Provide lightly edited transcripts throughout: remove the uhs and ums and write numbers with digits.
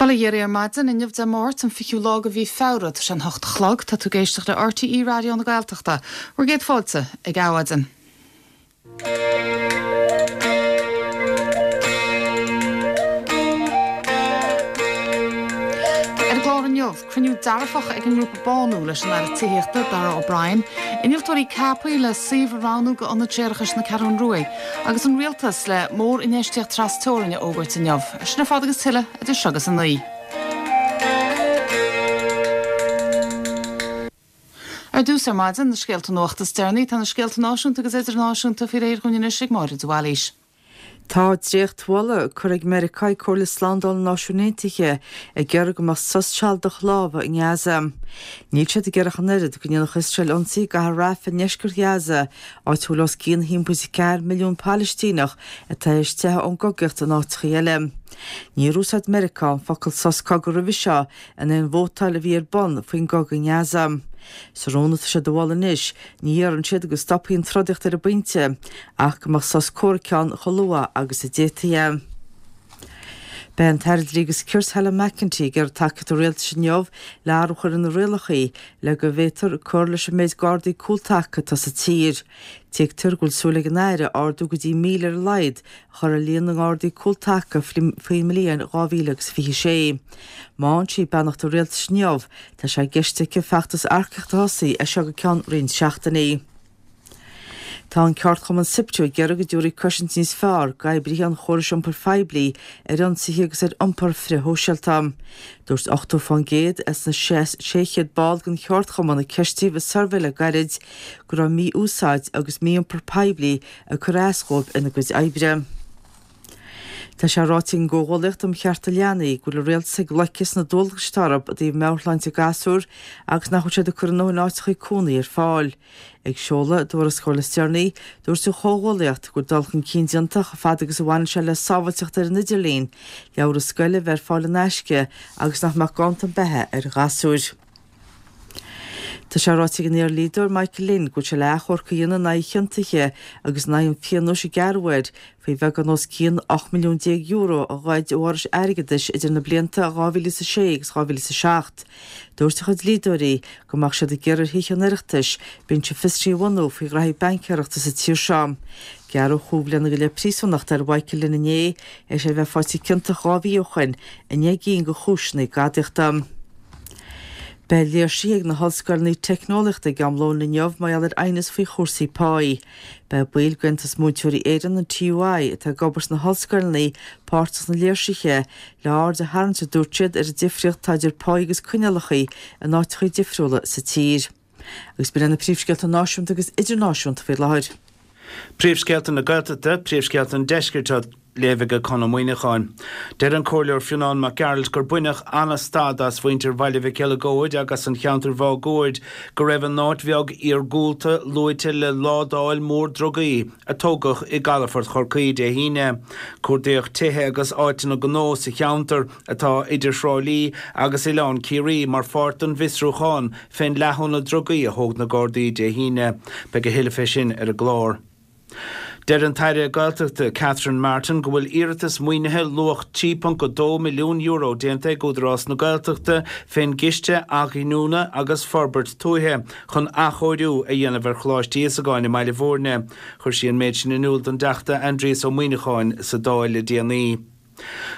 Bail ó Dhia oraibh ar maidin, inniu Dé Máirt, an 20ú lá de mhí Feabhra, tá sé an hocht a chlog, tá tú ag éisteacht le RTÉ Raidió na Gaeltachta. Bhur gcéad fáilte ag Adhmhaidin. Ar an gclár inniu, cruinniú dearfach ag an ngrúpa Bánú leis an Aire Tithíochta, Darragh O'Brien, innealtóirí ceaptha le suíomh a roghnú do Ionad Séarachais na Ceathrún Ruaidh, agus an Rialtas le mór-infheistíocht tras-teorainn a fhógairt inniu. Sin ar fad agus tuilleadh idir seo agus a naoi. Ar dtús ar maidin, na scéalta nuachta is deireanaí. Tá na scéalta náisiúnta agus idirnáisiúnta faoi réir dhúinn anois ag Máire de Bhailís. Tá dréachtmholadh curtha ag Meiriceá ag Comhairle Slándála na Náisiún Aontaithe ag iarraidh go mbeadh sos sealadach láimhe i nGaza. Níl siad ag iarraidh ach an oiread go ndéanfadh Iosrael ionsaí i gcathair Rafah i ndeisceart Ghaza, áit a bhfuil os cionn 1.4 milliún Palaistíneach atá théis teitheadh ón gcogaíocht in áiteachaí eile. Níor úsáid Meiriceá an focal sos cogaidh roimhe seo in aon vótáil a bhí ar bun faoin gcogadh i nGaza. Sa rún atá siad a mholadh anois, ní iarrann siad go stopfaí an trodaíocht ar an bpointe, ach go mbeadh sos comhraic ann chomh luath agus a d'fhéadfaí é. Beidh an tAire Dlí agus Cirt Helen McEntee ag iarraidh tacaíocht an Rialtais inniu le athrú a chur ar na rialacha le go bhféadfar cur leis an méid Gardaí cúltaca atá sa tír. Tuigtear go bhfuil súil ag an Aire ardú go dtí 1,000 ar a laghad a chur ar líon na nGardaí cúltaca faoin mbliain 2026. Má fhaigheann sí beannacht an Rialtais inniu, Tá sé i gceist aici feachtas earcaíochta a thosaí as seo go ceann roinnt seachtainí. Tá an ceardchumann Siptu ag iarraidh go dtabharfaí cosaint níos fearr d'oibrithe an chórais iompair phoiblí ar ionsaithe agus ar iompar frithshóisialta. Dúirt 80% as na 600 ball den cheardchumann a ceistíodh i suirbhé le gairid go raibh mí-úsáid agus mí-iompar poiblí ag cur as dhóibh ina gcuid oibre. Tá sé ráite ag an gComhghuallaíocht um Chearta Leanaí go bhfuil an Rialtas ag loiceadh sna dualgais atá orthu i dtaobh meabhairshláinte gasúr agus nach bhfuil siad ag cur a ndóthain áiteachaí cónaí ar fáil. Ag seoladh a dtuarascáil is deireanaí, dúirt an Chomhghuallaíocht go bhfuil dul chun cinn déanta chomh fada agus a bhaineann sé le sábháilteacht ar an idirlíon, leabhra scoile a bheith ar fáil in aisce agus nach mbeadh ganntan beatha ar ghasúir. Tá sé ráite ag an iardhlíodóir Michael Lynn go bhfuil sé le achomharc a dhéanamh in aghaidh a chiontaithe agus in aghaidh an phionóis a gearradh air faoi bheagán os cionn €18 milliún a ghoid ó fhorais airgeadais idir na blianta 2006 agus 2007. Dúirt a chuid dlíodóirí go mbeadh siad ag iarraidh ar Thithe an Oireachtais binse fiosraithe a bhunú faoi ghraithí baincéireachta sa tír seo. Gearradh chúig bhliana go leith príosúnachta ar Mhichael Lynn inné, théis é a bheith faighte ciontach 2 mhí ó shoin i ndeich gcinn de chúiseanna gadaíochta. Beidh léirsithe ag na hollscoileanna teicneolaíochta ag am lóin inniu mar gheall ar aighneas faoi chúrsaí páí. Beidh baill d'Aontas Múinteoirí Éireann, an TUI, atá ag obair sna hollscoileanna, páirteach sna léirsithe, le aird a tharraingt, a dúirt siad, ar an difríocht atá idir páí agus coinníollacha in áiteacha difriúla sa tír. Agus b'in iad na príomhscéalta náisiúnta agus idirnáisiúnta faoi láthair. Príomhscéalta na Gaeltachta, Príomhscéalta an Deiscirt á léamh ag Conn Ó Muíneacháin. Deir an Comhairleoir Fionán Mac Gearailt gur baineadh an-stad as mhuintir Bhaile Mhic Eileagóid agus an cheantair mháguaird go raibh a n-áit bheag iargúlta luaite le ládáil mhór drugaí a tógadh i gcalafort Chorcaí Dé hAoine. Cuardaíodh tithe agus áiteanna gnó sa cheantar atá idir Thrá Lí agus Oileán Ciarraí mar pháirt den bhfiosrúchán fén leathadh na drugaí a thóg na Gardaí Dé hAoine. Beidh a thuilleadh fé sin ar an gclár. Deir an tAire Gaeltachta Catherine Martin go bhfuil iarratas maoinithe luach €3.2 milliún déanta ag Údarás na Gaeltachta fén gCiste Athghiniúna agus Forbairt Tuaithe chun athchóiriú a dhéanamh ar Choláiste Íosagáin i mBaile Bhúirne. Chuir sí an méid sin in iúl don dTeachta Aindrias Ó Muíneacháin sa Dáil le déanaí.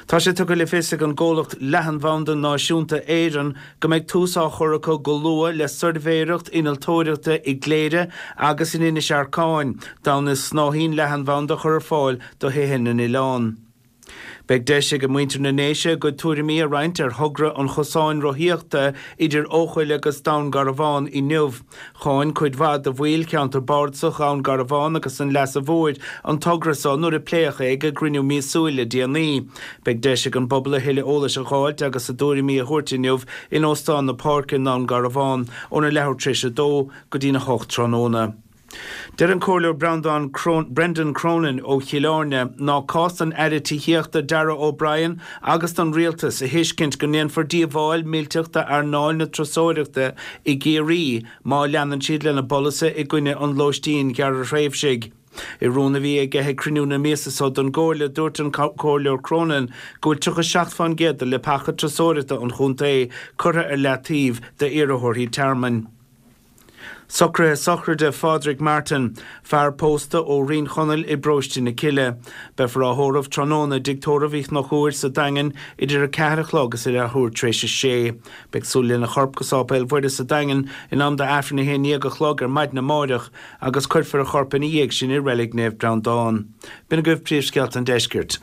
Tá sé tugtha le fios ag an gcomhlacht Leathanbhanda Náisiúnta Éireann go mbeidh tús á chur acu go luath le suirbhéireacht innealtóireachta i gCléire agus in Inis Arcáin d'fhonn is snáithín leathanbhanda a chur ar fáil do thithe na n-oileán. Beidh deis ag muintir na nDéise a gcuid tuairimí a roinnt ar thogra an chosáin rothaíochta idir Eochaill agus Dún Garbhán inniu. Cháin cuid mhaith de bhaill cheantar bardasach Dhún Garbhán agus an Leasa Mhóir an togra so nuair a pléadh é ag a gcruinniú míosúil le déanaí. Beidh deis ag an bpobal a thuilleadh eolais a dh'fháilt agus a dtuairimí a thabhairt inniu in Óstán na Páirce i nDún Garbhán óna leathuair tar éis a dó go dtína hocht tráthnóna. Deir an Comhairleoir Breandán Brendan Cronin ó Chill Airne ná cás don Aire Tithíochta Darragh O'Brien agus don Rialtas a thuiscint go ndéanfar díobháil millteach d'earnáil na turasóireachta i gCiarraí má leanann siad lena bpolasaithe i gcoinne an lóistín ghearrthréimhsigh. I rún a bhí aige ag cruinniú na míosa so don gComhairle, dúirt an Comhairleoir Cronin go bhfuil 37 fán gcéad de leapacha turasóireachta an chontae curtha ar leataobh d'iarrthóirí tearmainn. Socruithe sochraide Phádraig Martin, fear pósta ó Rinn Chonaill i bparóiste na Cille. Beifear á thórramh tráthnóna i dTigh Tórraimh Uí Chonchúir sa Daingean idir 4 a chlog is a leathuair tar éis a sé. Beidh súil lena chorp go Sáipéal Mhuire sa Daingean in am d'Aifreann 11 a chlog ar maidin amáireach agus cuirfear a chorp ina dhiaidh sin i Reilig Naomh Breandán. B'in agaibh príomhscéalta an deiscirt.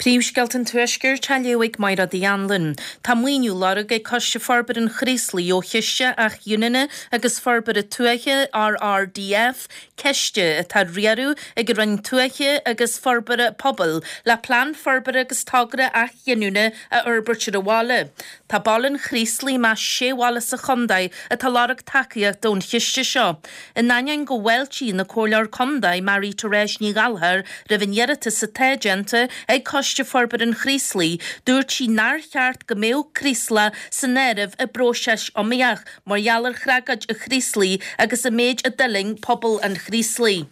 Príomhscéalta an Tuaiscirt á léamh ag Mairéad Uí Anluain. Tá maoiniú á lorg ag Coiste Forbartha an Chraoslaigh ó Chiste Athghiniúna agus Forbartha Tuaithe, RRDF, ciste atá á riaradh ag an Roinn Tuaithe agus Forbartha Pobail, le plean forbartha agus togra athghiniúna a fhorbairt ar an bhaile. Tá baile an Chraoslaigh i measc sé bhaile sa chontae atá ag lorg tacaíochta ón chiste seo. In ainneoin go bhfáiltíonn an Comhairleoir Contae Marie Therese Ní Ghallchóir roimh an iarratas atá déanta ag Coiste Forbartha an Chraoslaigh, dúirt sí nár cheart go mbeadh Craoslach san áireamh i bpróiseas iomaíoch mar gheall ar thragóid an Chraoslaigh agus an méid a d'fhulaing pobal an Chraoslaigh.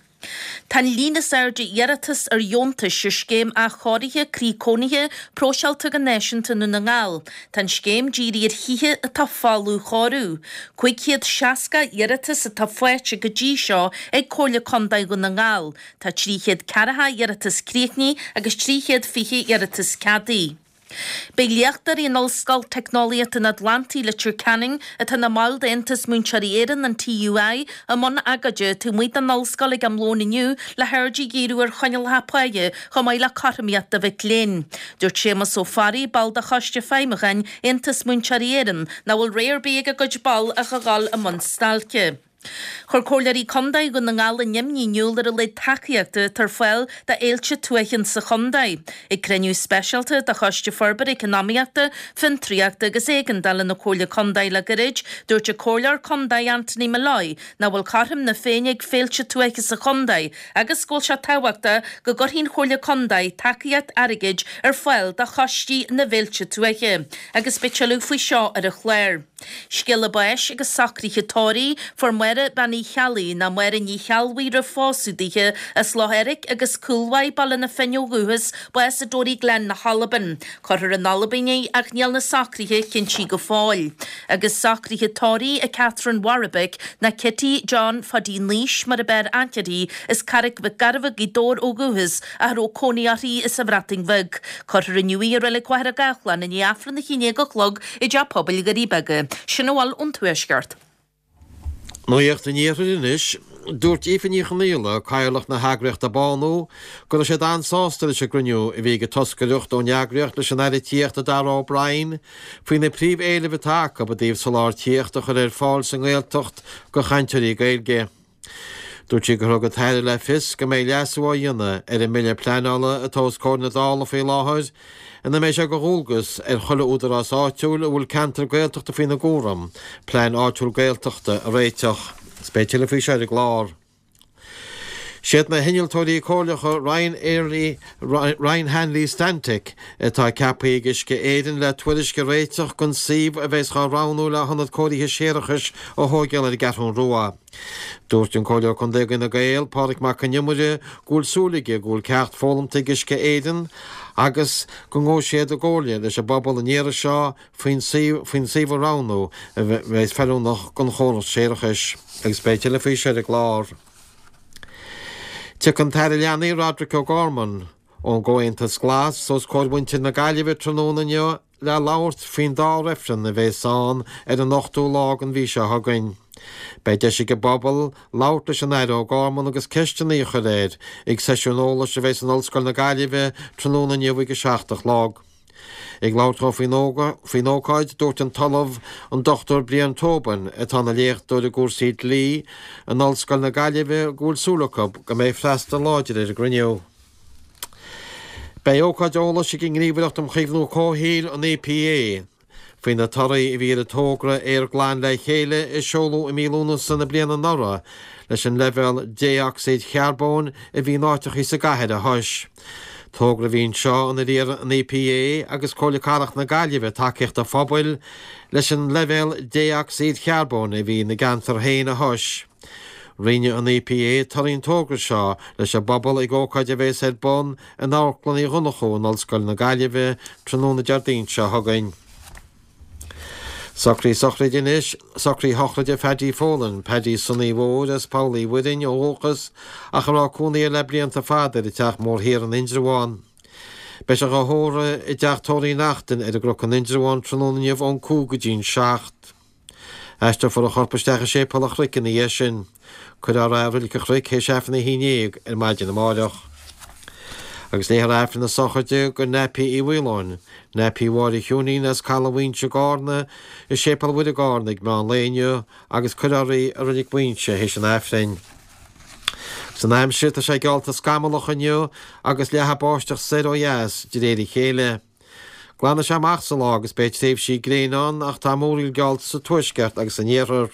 Tá an líon is airde iarratas ar dheontais ar Scéim Athchóirithe Croí Cónaithe próiseáilte go náisiúnta i nDún na nGall. Tá an scéim dírithe ar thithe atá folamh chóiriú. 560 iarratas atá faighte go dtí seo ag Comhairle Contae Dhún na nGall. Tá 340 iarratas críochnaithe agus 320 iarratas ceadaithe. Beidh léachtóirí in Ollscoil Teicneolaíochta an Atlantaigh, Leitir Ceanainn, atá ina mbaill d'Aontas Múinteoirí Éireann, an TUI, i mbun agóide taobh amuigh den ollscoil ag am lóin inniu le haird a dhíriú ar choinníollacha páighe chomh maith le cothromaíocht do mhic léinn. Dúirt Séamus Ó Fearraigh, ball de Choiste Feidhmiúcháin Aontas Múinteoirí Éireann, nach bhfuil rogha ar bith ag a gcuid ball ach a dhul i mbun stailce. Chuir Comhairleoirí Contae Dhún na nGall a n-imní in iúl ar a laghad tacaíochta atá ar fáil do fhéilte tuaithe sa chontae. Ag cruinniú speisialta de Choiste Forbartha Eacnamaíochta, Fiontraíochta agus Éigeandála na Comhairle Contae le gairid, dúirt an Comhairleoir Contae Anthony Molloy nach bhfuil cothrom na Féinne ag féilte tuaithe sa chontae agus go bhfuil sé tábhachtach go gcuirfidh an Chomhairle Contae tacaíocht airgid ar fáil do choistí na bhféilte tuaithe. Agus beidh tuilleadh faoi seo ar an chlár. Scéala báis agus socruithe tórraimh, Fuair Máire Bean Uí Cheallaigh, nó Máire Ní Cheallbhuí roimh phósadh daoithe, as Loch Eirc agus Cúlmhaigh, Baile na Finne ó dhúchas, bás i Toryglen na hAlban. Cuirfear in Albain í ach níl na socruithe cinntí go fóill. Agus socruithe tórraimh i Catherine Warwick, nó Kitty John Phaidí Naois mar ab fhearr aithne uirthi, as Carraig Mhic Gairbheith, Gaoth Dobhair ó dhúchas, ach a raibh cónaí uirthi sa Bhreatain Bheag. Cuirfear inniu í i Reilig Mhachaire Gathlán i ndiaidh Aifreann 11 a chlog i dTeach Pobail Dhoirí Beaga. Sin a bhfuil ón Tuaisceart. Nuacht an Iarthair anois. Dúirt Aoife Ní Chonaola, Cathaoirleach na heagraíochta Bánú, go raibh siad an-sásta leis an gcruinniú a bhí ag an toscaireacht ón eagraíocht leis an Aire Tithíochta Darragh O'Brien faoi na príomh-éilimh atá acu i dtaobh soláthar tithíochta a chur ar fáil sa nGaeltacht do chainteoirí Gaeilge. Dúirt sí gur thug an tAire le fios go mbeidh leasú á dhéanamh ar an mBille Pleanála atá os comhair na Dála faoi láthair ina mbeidh sé de dhualgas ar chuile údarás áitiúil a bhfuil ceantar Gaeltachta faoina gcúram plean áitiúil Gaeltachta a réiteach. Is beidh tuilleadh faoi seo ar an gclár. Siad na hinnealtóirí comhairleacha Ryan Airlie Ryan Hanley Stantec atá ceaptha ag Uisce Éireann le tuairisc a réiteach don suíomh a bheas dhá roghnú le hionad cóirithe séarachais a thóigeáil ar an gCeathrún Rua. Dúirt an Comhairleoir Contae d'Fhine Gael, Pádraig Mac Con Iomaire, go bhfuil súil aige go bhfuil ceacht foghlamta ag Uisce Éireann agus go ngabhfaidh siad i gcomhairle leis an bpobal an iarraidh seo faoin faoin suíomh a roghnú a bheas feiliúnach don chóras séarachais. Agus beidh tuilleadh faoi seo ar an gclár. Tiocfaidh an tAire Leanaí Roderic O'Gorman ón gComhaontas Glas os comhair mhuintir na Gaillimhe tráthnóna inniu le labhairt faoin dá reifreann a bheas ann ar an ochtú lá den mhí seo chugainn. Beidh deis ag an bpobal labhairt leis an Aire O'Gorman agus ceisteanna a chur air ag seisiún eolais a bheas in Ollscoil na Gaillimhe tráthnóna inniu ag a 7 a chlog. Ag labhairt dó faoin ócáid, dúirt an tOllamh, an Dr Brian Tobin, atá ina léachtóir i gcúrsaí dlí in Ollscoil na Gaillimhe, go bhfuil súil acu go mbeidh freastal láidir ar an gcruinniú. Beidh ócáid eolais ag an nGníomhaireacht um Chaomhnú Comhshaoil, an EPA, Faoi na torthaí a bhí ar an togra Aer Glan le Chéile a seoladh i mí Lúnasa na bliana anuraidh leis an leibhéal dé-ocsaíd charbóin a bhí in áiteachaí sa gcathair a thomhas. Togra a bhí anseo inar iarr an EPA agus Comhairle Cathrach na Gaillimhe tacaíocht an phobail leis an leibhéal dé-ocsaíd charbóin a bhí ina gceantar féin a thomhas. Roinnfidh an EPA torthaí an togra seo leis an bpobal ag ócáid a bheas ar bun in Amharclann Uí Dhonnchú in Ollscoil na Gaillimhe tráthnóna Déardaoin seo chugainn. Socruithe sochraide anois, socruithe sochraide Phaddy Folan, Paddy Sonaí Mhóir as Poll Uí Mhuirinn ó dhúchas ach a raibh cónaí air le blianta fada ar an Teach Mór Thiar in Indreabhán. Beidh sé dhá thórramh i dTeach Tórraimh Uí Neachtain ar an gCnoc in Indreabhán tráthnóna inniu ón 5 go dtí'n 7. Aistreofar a chorp isteach i Séipéal an Chnoic ina dhiaidh sin. Cuirfear é i Reilig an Chnoic théis Aifreann a 11 ar maidin amáireach. Agus léifear Aifreann na sochraide do Nappy Uí Mhaoláin, Nappy Mháire Chiúinín as Caladh Mhaínse i gCarna, i Séipéal Mhuire i gCarna ag meán lae inniu agus cuirfear í i Reilig Mhaínse théis an Aifrinn. Agus an aimsir, tá sé geallta scamallach inniu agus leathfaidh báisteach soir ó dheas de réir a chéile. Glanfaidh sé amach sa lá agus beidh tréimhsí gréine ann ach tá múraíl geallta sa tuaisceart agus san iarthar.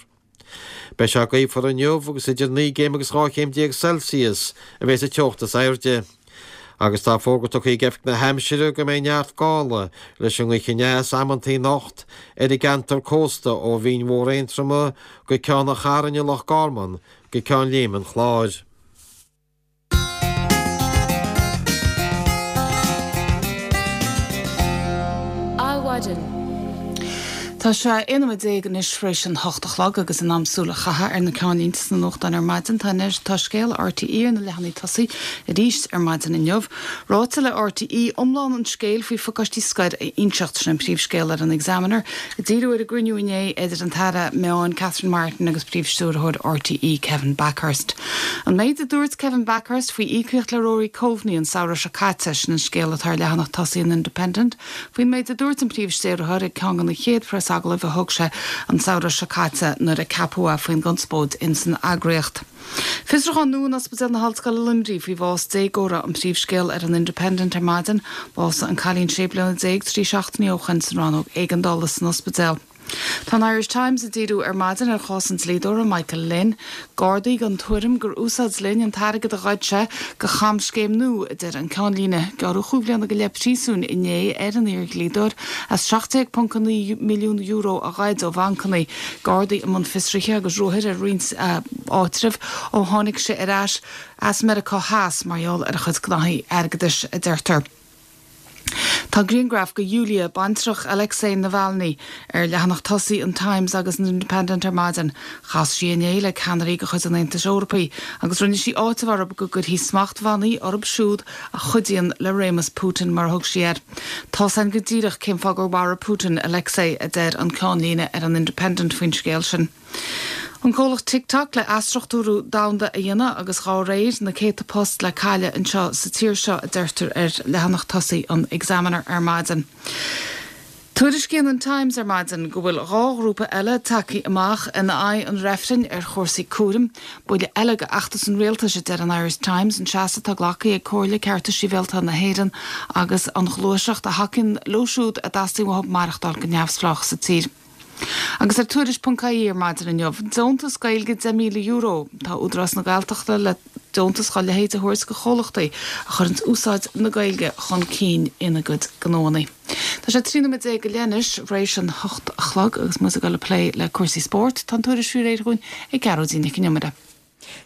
Beidh sé gaofar inniu agus idir 9 gcéim agus 12 chéim Celsius a bheidh sa teocht is airde. Agus tá fógra tugtha ag Oifig na hAimsire go mbeidh neart gála leis an ngaoth aneas amantaí anocht ar an gceantar cósta ó Bhinn Mhór Aontroma go Ceann an Chairn i Loch Garman go Ceann Léime an Chláir. Adhmhaidin. Tá sé 11 nóiméad anois tar éis an hocht a chlog agus in am súil a chaitheamh ar na ceannlínte sna nuachtáin ar maidin. Tá anois, tá scéal RTÉ ar na leathanaigh tosaigh arís ar maidin inniu. Ráite le RTÉ iomlán an scéil faoi phacáistí scoir a inseacht, sin an príomhscéal ar an Examiner. Ag díriú ar an gcruinniú inné idir an tAire Meáin Catherine Martin agus Príomh-Stiúrthóir RTÉ Kevin Bakhurst. An méid a dúirt Kevin Bakhurst faoi íocaíocht le Rory Coveney an samhradh seo caite, sin an scéal atá ar leathanach tosaigh an Independent faoin méid a dúirt an Príomh-Stiúrthóir ag ceann de na chéad phreasagallaimh a thug sé an samhradh seo caite nuair a ceapadh é faoin gconspóid ins an eagraíocht. Fiosrúchán nua in Ospidéal na hOllscoile Luimnigh faoi bhás déagóra an príomhscéal ar an Independent ar maidin. Bhásaigh an cailín 16 bliana trí seachtainí ó shoin san rannóg éigeandála san ospidéal. Tá an Irish Times ag díriú ar maidin ar chás an dlíodóra Michael Lynn. Gardaí den tuairim gur úsáid Lynn an t-airgead a ghoid sé do chamscéim nua, a deir an ceannlíne. Gearradh chúig bhliana go leith príosúin inné ar an iar-dhlíodóir as €17.9 milliún a ghoid ó bhancanna. Gardaí i mbun fiosraithe agus ruathair ar roinnt áitreabh ó tháinig sé ar ais as Meiriceá Theas mar gheall ar a chuid gnaithí airgeadais, a deirtear. Tá grianghraf de Yulia, baintreach Alexei Navalny, ar leathanach tosaigh an Times agus an Independent ar maidin. Chas sí inné le ceannairí de chuid an Aontais Eorpaigh agus rinne sí áiteamh orthu go gcuirfí smachtbhannaí orthu siúd a chuidíonn le réimeas Putin, mar a thug sí air. Tá's againn go díreach cén fáth gur mharaigh Putin Alexei, a deir an ceannlíne ar an Independent faoin scéal sin. An comhlacht TikTok le athstruchtúrú domhanda a dhéanamh agus dhá réir, na céadta post le cailleadh anseo sa tír seo, a deirtear ar leathanach tosaigh an Examiner ar maidin. Tuairiscíonn an Times ar maidin go bhfuil 2 ghrúpa eile tagtha amach in aghaidh an reifrinn ar chúrsaí cúraim. Buille eile do fheachtas an rialtais, a deir an Irish Times, an seasamh atá glactha ag Comhairle Cearta Sibhialta na hÉireann agus an ghluaiseacht a thacaíonn leo siúd a dteastaíonn uathu maireachtáil go neamhspleách sa tír. Agus ar Tuairisc.ie ar maidin inniu, deontas Gaeilge €10,000. Tá Údarás na Gaeltachta le deontas dá leithéid a thabhairt do chomhlachtaí a chuireanns úsáid na Gaeilge chun cinn ina gcuid gnóanna. Tá sé 13 nóiméad go leith anois tar éis an hocht a chlog agus muid ag dul ag plé le cúrsaí spóirt. Tá an tuairisc faoi réir dhúinn ag Gearóidín Nic an Iomaire.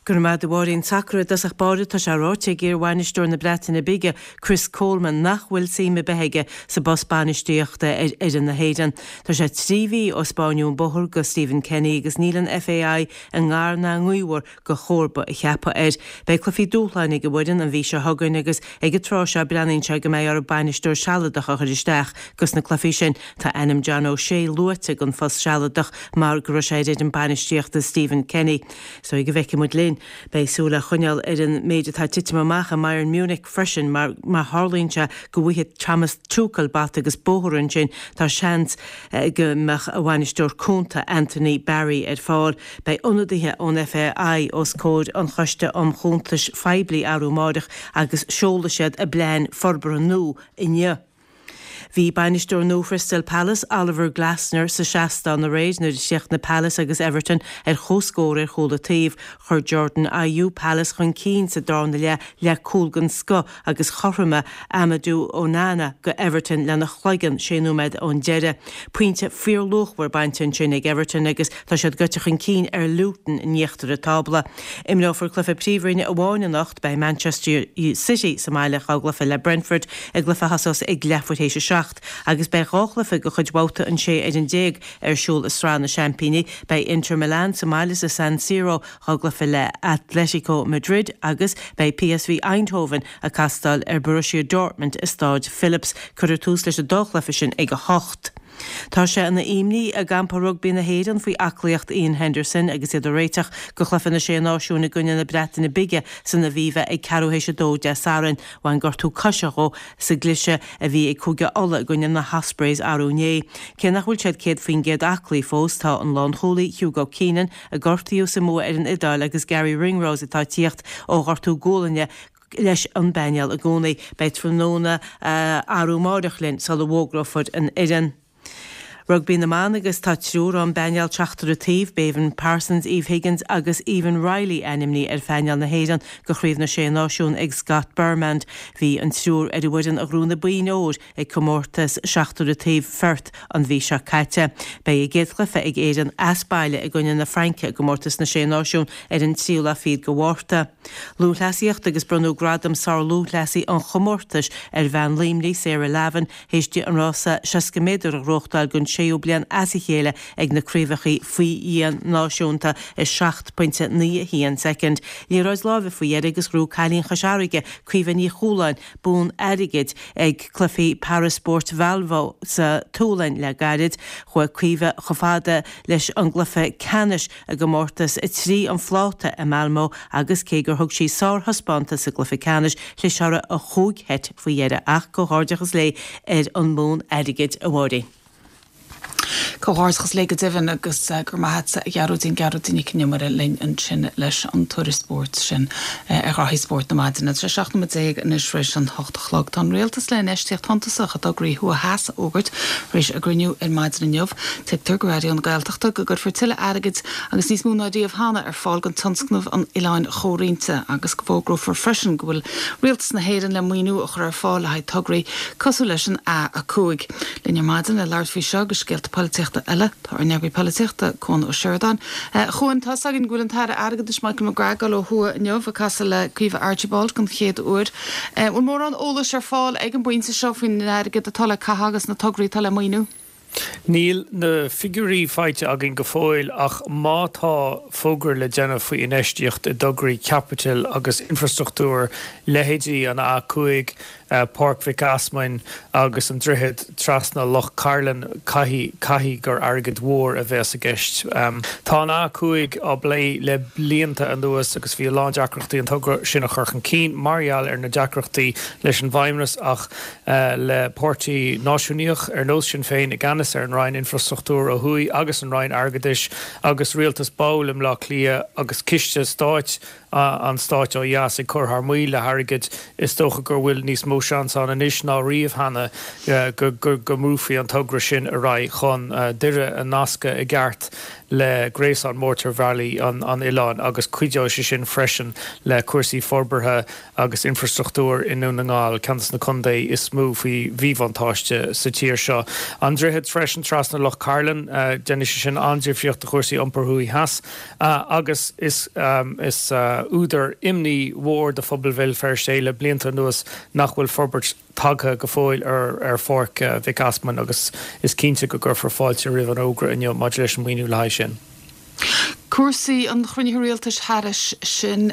Go raibh maith agat a Mháirín. Sacar i dtosach báire, tá sé ráite ag iar-bhainisteoir na Breataine Bige, Chris Coleman, nach bhfuil suim ar bith aige sa bpost bainistíochta ar fhoireann na hÉireann. Tá sé 3 mhí ó spáineadh an bóthar do Stephen Kenny agus níl an FAI i ngar ná i ngaobhar do chomharba a cheapadh air. Beidh cluichí dúshláin ag an bhfoireann an mhí seo chugainn agus ag an tráth seo breathnaíonn sé go mbeidh orthu bainisteoir sealadach a chur isteach dos na cluichí sin. Tá ainm John O'Shea luaite don phost sealadach mar go raibh sé ar fhoireann bainistíochta Stephen Kenny. So go bhfeicfidh muid linn. Beidh súil á choinneáil ar an méid atá ag titim amach i mBayern Munich freisin mar má tharlaíonn sé go bhfaighidh Thomas Tuchel bata agus bóthar ansin tá seans go mbeadh a bhainisteoir cúnta Anthony Barry ar fáil. Beidh ionadaithe ón FAI os comhair an Choiste um Chuntais Phoiblí arú amáireach agus seolfaidh siad a bplean forbartha nua inniu. Bhí bainisteoir nua Chrystal Palace, Oliver Glasner, sa seastán aréir nuair a chríochnaigh Palace agus Everton ar comhscór ar chúl an taobh. Chuir Jordan Ayew Palace chun cinn sa darna leath le cúl den scoth agus chothromaigh Amadou Onana go Everton lena chloigeann sé nóiméad ón deireadh. Pointe fíorluachmhar bainte ansin ag Everton agus tá siad gaibhte chun cinn ar Luton in íochtar an tábla. Imreofar cluiche Príomhroinne amháin anocht, beidh Manchester City sa mbaile dhá gcluiche le Brentford i gcluiche a thosós ag leathuair théis a 7 agus beidh 2 chluiche de chuid bhabhta an 16 ar ar siúl i Sraith na Seaimpíní. Beidh Inter Milan sa mbaile sa San Siro dhá gcluiche le Atletico Madrid agus beidh PSV Eindhoven ag castáil ar Borussia Dortmund i Stáid Philips. Cuirfear tús leis an dá chluiche sin ag 8. Tá sé ina imní i gcampa rugbaí na hÉireann faoi aclaíocht Iain Henderson agus iad ag réiteach do chluiche na Sé Náisiún i gcoinne na Breataine Bige san Aviva ag ceathrú théis a dó Dé Sathairn. Bhain gortú coise dhó sa gcliseadh a bhí ag Cúige Uladh i gcoinne na hOspreys arú inné. Cé nach bhfuil siad 100% aclaí fós, tá an lánchúlaí Hugo Keenan, a gortaíodh sa mbua ar an Iodáil agus Garry Ringrose atá ag tíocht ó ghortú gualainne leis an bpainéal i gcónaí. Beidh tráthnóna arú amáireach linn sula bhfógrófar an fhoireann. Rugbaí na mBan agus tá triúr ón bpainéal seachtar an taobh, Béibhinn Parsons, Eve Higgins agus Aoibheann Reilly ainmnithe ar phainéal na hÉireann do Chraobh na Sé Náisiún ag Scott Burnand. Bhí an triúr ar an bhfoireann a ghnóthaigh na boinn óir ag comórtas seachtar an taobh Pherth an mhí seo caite. Beidh a gcéad chluiche ag Éirinn as baile i gcoinne na Fraince i gcomórtas na Sé Náisiún ar an tríú lá fichead de Mhárta. Lúthchleasaíocht agus bronnadh gradam sár-lúthchleasaí an chomórtais ar bhean Luimnigh, Sarah Lavin, théis di an rása 60 méadar a ghnóthachtáil don séú bliain as a chéile ag na craobhacha faoi dhíon náisiúnta i 7.91 soicind. Liathróid láimhe faoi dheireadh agus ghnóthaigh cailín Chois Fharraige, Caoimhe Ní Chualáin, bonn airgid ag Cluichí Paraspóirt Valbo sa tSualainn le gairid. Chuaigh Caoimhe chomh fada leis an gcluiche ceannais i gcomórtas 3 an phláta i Malmö agus cé gur thug sí sárthaispeántas sa gcluiche ceannais, chlis uirthi an chúig sheit faoi dheireadh. Ach comhghairdeachas léi ar an mbonn airgid, a Mháirín. Comhghairdeachas léi go deimhin agus go raibh maith a't a Ghearóidín, Gearóidín Nic an Iomaire linn ansin leis an tuairisc spóirt sin ar ghraithí spóirt na maidine. Tá sé 17 nóiméad anois tar éis an hocht a chlog. Tá an Rialtas le infheistíocht shuntasach i dtograí thuaidh theas a fhógairt tar éis a gcruinniú ar maidin inniu. Tuigtear go Raidió na Gaeltachta go gcuirfear tuilleadh airgid agus níos mó ná riamh cheana ar fáil don tionscnamh an Oileáin Chomhroinnte agus go bhfógrófar freisin go bhfuil Rialtas na hÉireann le maoiniú a chur ar fáil le haghaidh tograí cosúil leis an A5. Linn ar maidin le labhairt faoi seo agus scéalta polaitíochta eile, tá ár n-eagraí polaitíochta, Cuan Ó Seireadáin. A Chuain, tá's againn go bhfuil an tAire Airgeadais Michael McGrath ag dul ó thuaidh inniu, ag casadh le Caoimhe Archibald den chéad uair. An bhfuil mórán eolais ar fáil ag an bpointe seo faoin airgead atá le caitheamh agus na tograí atá le maoiniú? Níl na figiúirí faighte againn go fóill ach má tá fógra le déanamh faoi infheistíocht i dtograí caipitil agus infreastruchtúir, leithéidí an A5, Páirc Mhic Easmainn agus an droichead trasna Loch Cairlinn, caithfidh, caithfidh gur airgead mhór a bheas i gceist. Tá an A5 á bplé le blianta anuas agus bhí a lán deacrachtaí an togra sin a chur chun cinn mar gheall ar na deacrachtaí leis an bhFeidhmeannas ach le páirtí náisiúnaíoch ar nós Sinn Féin i gceannas ar an Roinn Infreastruchtúir ó thuaidh agus an Roinn Airgeadais agus rialtas ball i mBleá Cliath agus ciste stáit an stáit ó dheas ag cur thar maoil le hairgead, is dócha go bhfuil níos mó seans ann anois ná riamh cheana go mbrúfaí an togra sin ar aghaidh chun Doire a nascadh i gceart le gréasán mótarbhealaí an oileáin agus cuideoidh sé sin freisin le cúrsaí forbartha agus infreastruchtúir i nDún na nGall, ceann de na contae is mó faoi mhíbhuntáiste sa tír seo. An droichead freisin trasna Loch Cairlinn, déanfaidh sé sin an-difríocht do chúrsaí iompair thuaidh theas. Agus is údar imní mhór do phobal Bhéal Feirste é le blianta anuas nach bhfuil forbairt tagtha go fóill ar Pháirc Mhic Easmainn agus is cinnte go gcuirfear fáilte roimh an fhógra inniu maidir leis an maoiniú le haghaidh sin. Cúrsaí an chruinnithe rialtais thairis sin,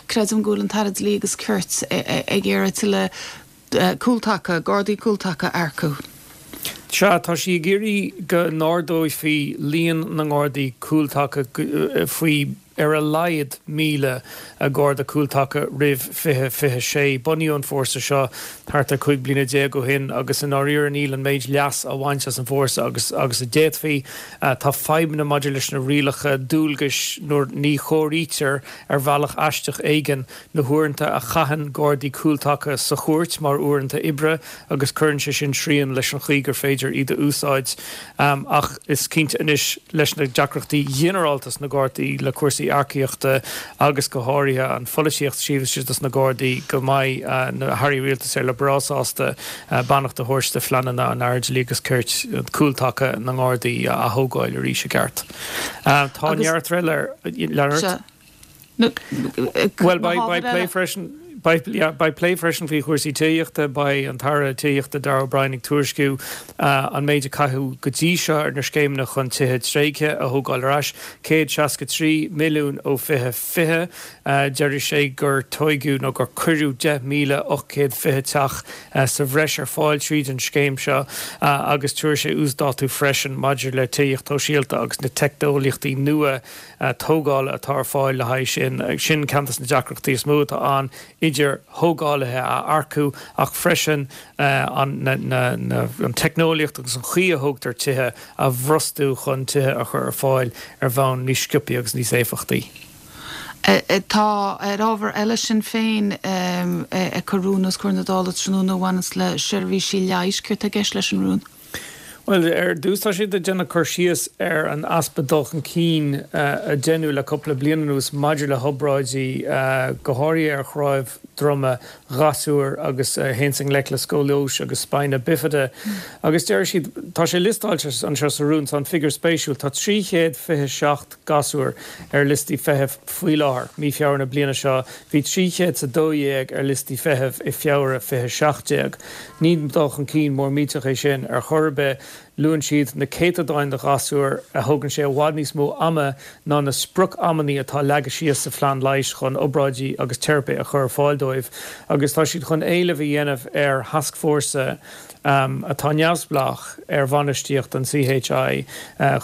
creidim go bhfuil an tAire Dlí agus Cirt ag iarraidh tuilleadh cúltaca, Gardaí cúltaca a earcú. Sea, tá sí ag iarraidh go n-ardófaí líon na nGardaí cúltaca faoi. ar a laghad 1,000 Garda Cúltaca roimh 2026. Bunaíodh an fórsa seo thart ar 15 bliana ó shin agus i ndáiríre níl an méid leas á bhaint as an bhfórsa agus agus a d'fhéadfaí. Tá fadhbanna maidir leis na rialacha dualgais nuair ní chomhairítear ar bhealach aisteach éigin na huaireanta a chaitheann Gardaí Cúltaca sa chúirt mar uaireanta oibre agus cuireann sé sin srian leis an chaoi gur féidir iad a úsáid. Ach is cinnte anois leis na deacrachtaí ghinearálta sna Gardaí le cúrsaí earcaíochta agus go háirithe an pholaitíocht taobh istigh dos na Gardaí go mbeidh na hairí rialtais ar le breá sásta beannacht a thabhairt do phleananna an Aire Dlí agus Cirt cúltaca na nGardaí a athógáil arís i gceart. Tá neart eile ar lean ort. Bhuel, beidh plé freisin, beidh plé freisin faoi chúrsaí tithíochta. Beidh an tAire Tithíochta Darragh O'Brien ag tuairisciú an méid a caitheadh go dtí seo ar na scéimeanna chun tithe tréigthe a thógáil ar ais, 163 milliún ó 2020. Deir sé gur tóigeadh nó gur cuireadh 10,820 teach sa bhreis ar fáil tríd an scéim seo agus tabharfaidh sé uasdátú freisin maidir le tithíocht shóisialta agus na teicneolaíochtaí nua tógála atá ar fáil le haghaidh sin. Sin ceann de na deacrachtaí is mó atá ann, idir thógálaithe a earcú ach freisin an teicneolaíocht agus an chaoi a thógtar tithe a bhrostú chun tithe a chur ar fáil ar bhonn níos sciobthaí agus níos éifeachtaí. Tá, ar ábhar eile, Sinn Féin ag cur rún os comhair na Dála tráthnóna a bhaineanns le seirbhísí leighis. Céard tá i gceist leis an rún? Bhuel, ar dtús tá siad ag déanamh cur síos ar an easpa dul chun cinn a deineadh le cúpla bliain anuas maidir le hobráidí, go háirithe ar chnámh droma ghasúir agus a théanns i ngleic le scóilióis agus spina bifida. Agus deir siad, tá sé liostáilte anseo sa rún, tá an figiúr spéisiúil, tá 327 gasúr ar liostaí feithimh faoi láthair, mí Feabhra na bliana seo, bhí 312 ar liostaí feithimh i Feabhra 2017. Ní dul chun cinn mór millteach é sin ar chor ar bith. Luann siad na céatadáin de ghasúir a thógann sé i bhfad níos mó ama ná na sprioc-amannaí atá leagtha síos sa phlean leighis chun obráidí agus teiripe a chur ar fáil dóibh agus tá siad chun éileamh a dhéanamh ar thascfhórsa atá neamhspleách ar bhainistíocht an CHI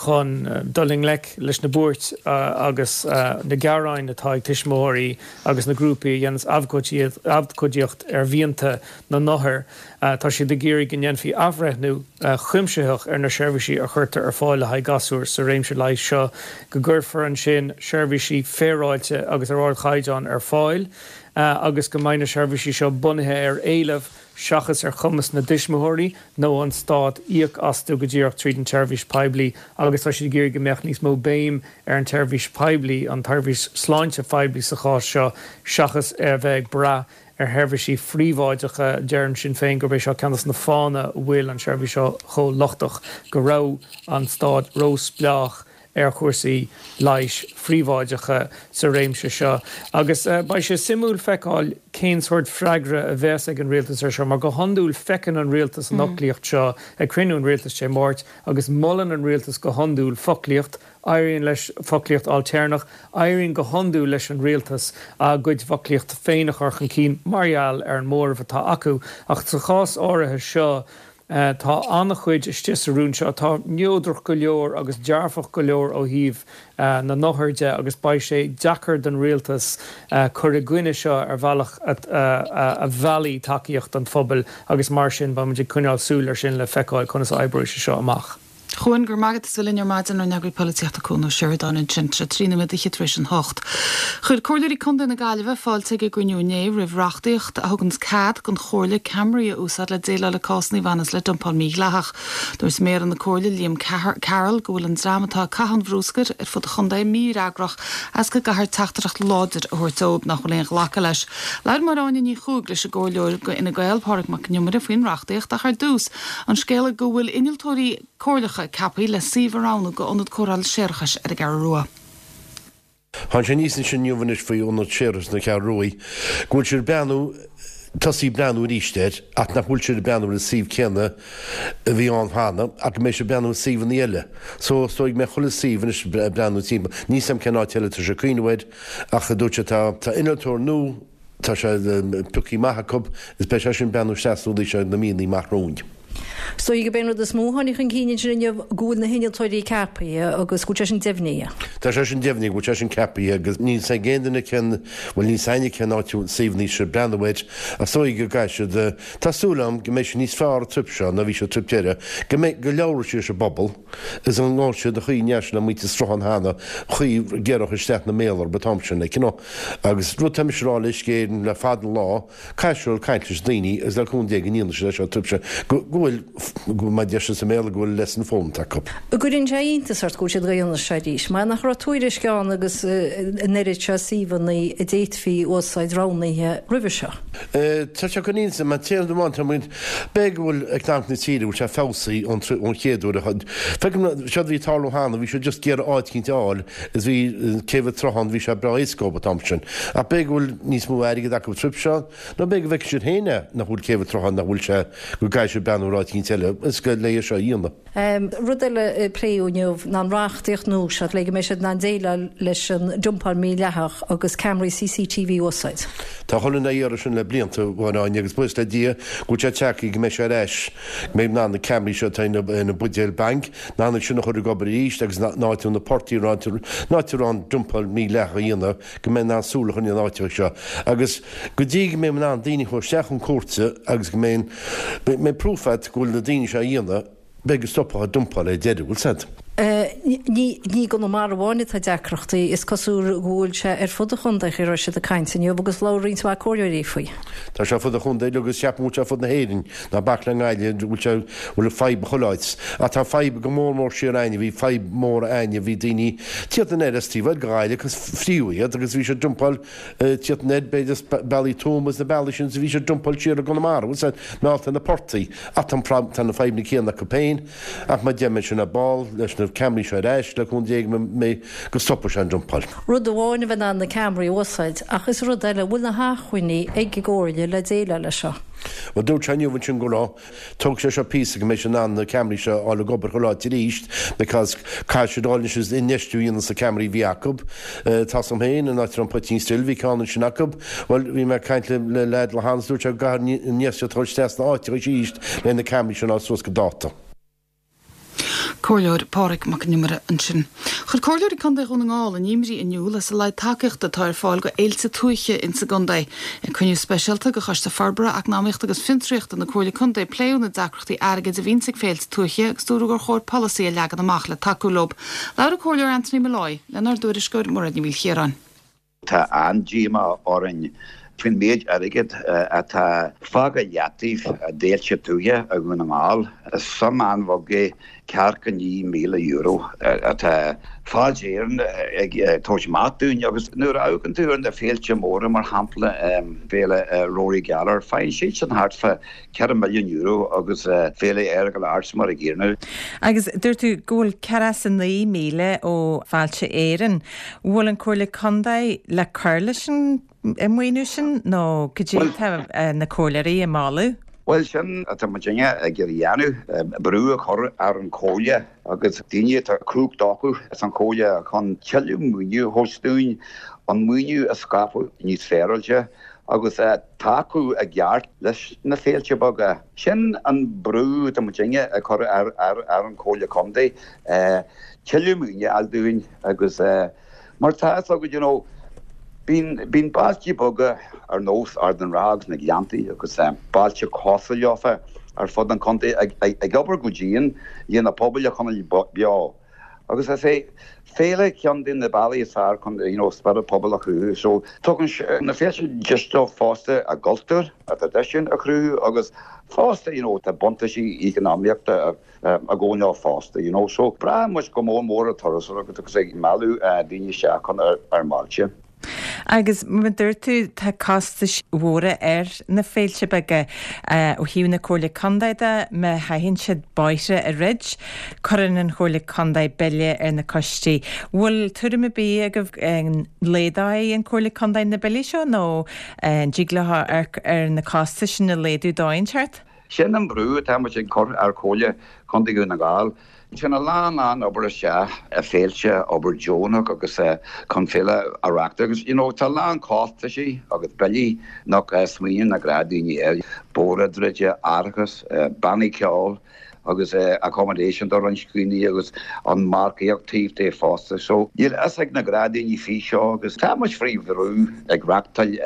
chun dul i ngleic leis na buairt agus na gearáin atá ag tuismitheoirí agus na grúpaí a dhéanas abhcóidíocht ar mhianta na n-othar. Tá siad ag iarraidh go ndéanfaí athbhreithniú cuimsitheach ar na seirbhísí a chuirtear ar fáil le haghaidh gasúr sa réimse leighis seo, go gcuirfear ansin seirbhísí féaráilte agus ar ardchaighdeán ar fáil agus go mbeidh na seirbhísí seo bunaithe ar éileamh seachas ar chumas na dtuismitheoirí nó an stát íoc astu go díreach tríd an tseirbhís poiblí agus tá siad ag iarraidh go mbeadh níos mó béim ar an tseirbhís poiblí, an tseirbhís sláinte phoiblí sa chás seo, seachas a bheith ag brath ar sheirbhísí phríobháideacha. Deireann Sinn Féin gurb é seo ceann de na fáthanna a bhfuil an tseirbhís seo chomh lochtach, go raibh an stát ró-spleách ar chúrsaí leighis phríobháideacha sa réimse seo agus beidh sé suimiúil feiceáil cén sórt freagra a bheas ag an rialtas ar seo mar go hiondúil feiceann an rialtas an fhoclaíocht seo ag cruinniú an rialtais Dé Máirt agus molann an rialtas go hiondúil foclaíocht, éiríonn leis foclaíocht ailtéarnach, éiríonn go hiondúil leis an rialtas a gcuid foclaíochta féin a chur chun cinn mar gheall ar an móramh atá acu ach sa chás áirithe seo Tá an-chuid istigh sa rún seo atá neodrach go leor agus dearfach go leor ó thaobh na n-othar de agus beidh sé deacair don rialtas cur i gcoinne seo ar bhealach a mheallfaidh tacaíocht an phobail agus mar sin beidh muid ag coinneáil súil air sin le feiceáil conas a oibreoidh sé seo amach. A Chuain, go raibh maith agat as a bheith linn ar maidin, ár n-eagraí polaitíochta Cuan Ó Seireadáin ansin, tá sé 13 nóiméad tar éis an hocht. Chuir Comhairleoirí Contae na Gaillimhe fáilte ag a gcruinniú inné roimh reachtaíocht a thuganns cead don Chomhairle ceamaraí a úsáid le déileáil le cásanna a bhaineas le dumpáil mhídhleathach. Dúirt Méara na Comhairle, Liam Carroll, go bhfuil an dream atá ag caitheamh an bhrúscair ar fud an chontae mífhreagrach as go gcaithfear teachtaireacht láidir a thabhairt dóibh nach bhfuil aon ghlacadh leis. Labhair Máire Áine Ní Chuaig leis an gComhairleoir do Fhine Gael, Pádraig Mac Con Iomaire faoin reachtaíocht ach ar dtús, An scéala go bhfuil innealtóirí comhairleacha ceaptha le suíomh a roghnú do ionad cóireála séarachais ar an gCeathrú Rua. Tháinig sé aníos ansin inniu anois faoi ionad séarachais na Ceathrún Rua go bhfuil siad ag breathnú, tosaí ag breathnú arís air ach nach bhfuil siad ag breathnú ar an suíomh céanna a bhí ann cheana ach go mbeidh siad ag breathnú ar suíomhanna eile. So is dóigh go mbeidh chuile suíomh anois ag breathnú timpeall. Níl 's a'm cén áit eile atá sé ag cuimhneamh air ach dúirt sé tá tá innealtóir nua, Tá sé pioctha amach acu is beidh sé sin ag breathnú isteach sna rudaí seo na míonna amach romhainn. Is dóigh gurb é an rud is mó a tháinig chun cinn ansin inniu go bhfuil na hinnealtóirí ceapaithe agus go bhfuil sé sin deimhnithe. Tá sé sin deimhnithe, go bhfuil sé sin ceapaithe agus níl 's ag aon duine cén, bhuel níl 's againne cén áit a bhfuil suíomhanna siad ag breathnú air ach is dóigh go gcaithfidh siad, tá súil agam go mbeidh sé níos fearr an trip seo ná bhí sé an trip deireadh, go mbeidh, go labhróidh siad leis an bpobal is an ngabhfaidh siad an chaoi a ndeachaigh siad le muintir Sruthán cheana, chaoi a gcuirfeadh isteach na méala orthu an t-am sin, like you know. Agus rud tá mise a rá le Uisce Éireann le fada an lá, Caithfidh siad caint leis na daoine agus le cúnamh Dé go ndéanfaidh siad é seo trip seo go bhfuil, go mar a deir siad sa mBéarla, go bhfuil lesson foghlamtha acu. An gcuireann sé iontas ort go bhfuil siad ag déanamh seo arís? Mar nach raibh tuairisc ann agus an oiread seo suíomhanna a d'fhéadfaí a úsáid roghnaithe roimhe seo? Tá sé ag cur iontas orm, an t-aon rud amháin tá muid, b'fhéidir go bhfuil eacnamaíocht na tíre, go bhfuil sé feabhsaithe ón ón chéad uair a feicim seo a bhí ag tarlú cheana, bhí siad just ag iarraidh áit eicínt a fháil is bhí céibh an tSrutháin, bhí sé breá éasca dóibh an t-am sin. Ach b'fhéidir go bhfuil níos mó airgid acu an trip seo, nó b'fhéidir go bhfeicfidh siad féin é, nach bhfuil céibh an tSrutháin, nach bhfuil sé, go gcaithfidh siad breathnú ar áit eicínt eile, is go le é seo a dhéanamh. Rud eile a pléadh inniu ná an reachtaíocht nua seo le go mbeidh siad in ann déileáil leis an dumpáil mhídhleathach agus ceamaraí CCTV a úsáid. Tá chuile dhuine á iarraidh sin le blianta, a Mháire Áine, agus buíochas le Dia go bhfuil sé tagtha go mbeidh sé ar ais, go mbeidh in ann na ceamaraí seo atá ar na buidéil bainc, in ann iad sin a chur ag obair arís agus an áit a bhfuil na portaigh, an áit a raibh an dumpáil mhídhleathach á dhéanamh, go mbeidh in ann súil a choinneáil ar na háiteacha seo. Agus go dtí go mbeidh in ann daoine a chur isteach chun cúirte agus go mbeidh mbeidh proof agat go bhfuil na daoine seo á dhéanamh, beidh go stopfadh an dumpáil ar deireadh, bhfuil 's a'd. Ní i gConamara amháin atá deacrachtaí, is cosúil go bhfuil sé ar fud an chontae, a raibh siad ag caint inniu agus labhair roinnt mhaith comhairleoirí faoi. Tá sé ar fud an chontae agus ceapaim go bhfuil sé ar fud na hÉireann, ná bac le nGaillimh, go bhfuil sé, bhfuil an fadhb chuile áit. Ach tá fadhb go mór mór siar a'inne, bhí fadhb mór a'inne, bhí daoine tíocht anoir as taobh thoir de Ghaillimh agus fríodh iad agus bhí siad dumpáil tíocht anoir b'fhéidir as bealaí Tuama is na bealaí sin is bhí siad dumpáil siar i gConamara, bhfuil 's a'd, meallta na portaigh. Ach tá an tá na fadhbanna céanna acu féin ach mar a deir mé sin ar ball leis na ceamaraí seo ar ais le cúnamh Dé go mbeidh go stopfaidh sé an dumpáil. Rud amháin a bheith in ann na ceamaraí a úsáid ach is rud eile, an bhfuil na hacmhainní ag an gComhairle le déileáil leis seo? Bhuel dúirt sé inniu ansin go raibh. Tógfaidh sé seo píosa go mbeidh siad in ann na ceamaraí seo a fháil ag obair chuile áit arís because caithfidh siad dul anois is infheistiú a dhéanamh sna ceamaraí a bhí acu. Tá 's agam féin, an áit a raibh an Poitín Stil, bhí ceann ansin acu. Bhuel, bhí mé ag caint le le leaid le Hans, dúirt sé go gcaithfear infheistíocht a chur isteach sna áiteacha arís le na ceamaraí sin a fháil suas go dáta. Comhairleoir Pádraig Mac Con Iomaire ansin. Chuir Comhairleoirí Contae Dhún na nGall a n-imní in iúl as a laghad tacaíochta atá ar fáil go fhéilte tuaithe ins an gcontae. Ag cruinniú speisialta de Choiste Forbartha, Eacnamaíochta agus Fiontraíochta na Comhairle Contae pléadh na deacrachtaí airgid a bhíonns ag féilte tuaithe agus dúradh gur chóir polasaí a leagan amach le tacú leo. Labhair an Comhairleoir Anthony Molloy lenár dtuairisceoir Mairéad Ní Mhaoilchiaráin. Tá an-díomá orainn faoin méid airgid atá fágtha i leataobh d'fhéilte tuaithe i Dhún na nGall. Is suim an-bheag é ceathracha €9,000 atá Fáilte Éireann ag tabhairt amach dúinn agus nuair a amharcann tú ar na féilte móra, mar shampla Féile Rory Gallagher, faigheann siadsan thart fá €4 milliún agus Féile Earagail Arts mar a gcéanna. Agus dúirt tú go bhfuil 49,000 ó Fáilte Éireann. Bhfuil an Comhairle Contae le cur leis an maoiniú sin nó cad é atá na comhairleoirí ag moladh? Bhuel, sin atá muidinne ag iarraidh a dhéanamh, brú a chur ar an Chomhairle agus daoine atá cumhacht acu san Chomhairle chun tuilleadh maoiniú a thabhairt dúinn, an maoiniú a scaipeadh níos féaráilte agus tacú i gceart leis na féilte beaga. Sin an brú atá muidinne ag cur ar an Chomhairle Contae, tuilleadh maoinithe a fháil dúinn agus mar tá fhios agat, you know, bíonn, bíonn bailte beaga ar nós Ard an Rátha agus na Gleanntaí agus bailte cosúil leofa ar fud an chontae ag obair go dian le na pobail a choinneáil beo. Agus is é féile ceann de na bealaí is fearr chun you know spiorad pobail a chruthú. So tugann na féilte deis dóibh fosta a gcultúr, a dtraidisiún a chruthú agus fosta you know tá buntáistí eacnamaíochta ag gabháil leo fosta you know. So braitheann muid go mór mór ar turasóireacht agus ag mealladh daoine isteach chun ár mbailte. Agus mar a dúirt tú, tá costais mhóra ar na féilte beaga. Ó thaobh na Comhairle Contae de, má chaitheann siad bóithre a dhruid, cuireann an Chomhairle Contae bille ar na coistí. Bhfuil tuairim ar bith agaibh an laghdóidh an Chomhairle Contae na billí seo nó an dtig leo amharc ar na costais sin a laghdú dóigh inteacht? Sin an brú atá muid ag cur ar Chomhairle Contae Dhún na nGall. Téann a lán lán obair isteach i féilte, obair deonach agus chun féile a reachtáil agus you know tá a lán costaisí agus billí nach smaoiníonn na gnáthdhaoine air, bóithre a dhruid, árachas, bannaí ceoil agus accommodation do roinnt daoine agus an marcaíocht taobh de fosta. So níl a fhios ag na gnáthdhaoine faoi seo agus tá muid faoi bhrú ag reachtáil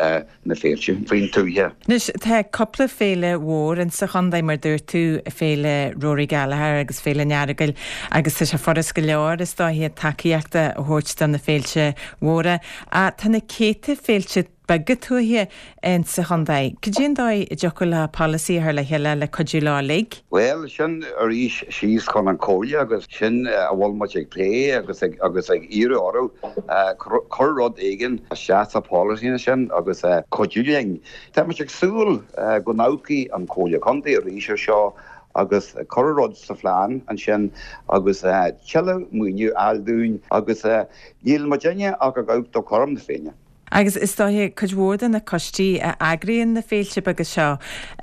na féilte faoin tuaithe. Anois, tá cúpla féile mhór insa chontae, mar dúirt tú, Féile Rory Gallagher agus Féile an Earagail agus tá sé furast go leor, is dóiche, tacaíocht a thabhairt do na féilte mhóra. Ach tá na céadta féilte beaga tuaithe insa chontae. Cad é an dóigh a dtiocfadh le polasaí a chur le chéile le cuidiú leo uilig? Bhuel, sin arís síos chun an Chomhairle agus sin a bhfuil muid ag plé agus ag agus ag iarraidh orthu cur rud éigin isteach sa pholasaí sin agus cuidiú linn. Tá muid ag súil go n-amharcfaidh an Chomhairle Contae arís ar seo agus cur rud sa phlean ansin agus tuilleadh maoiniú a fháil dúinn agus níl muidinne ach ag amharc do chothrom na Féinne. Agus is dóiche, cuid mhór de na coistí a eagraíonn na féilte beaga seo,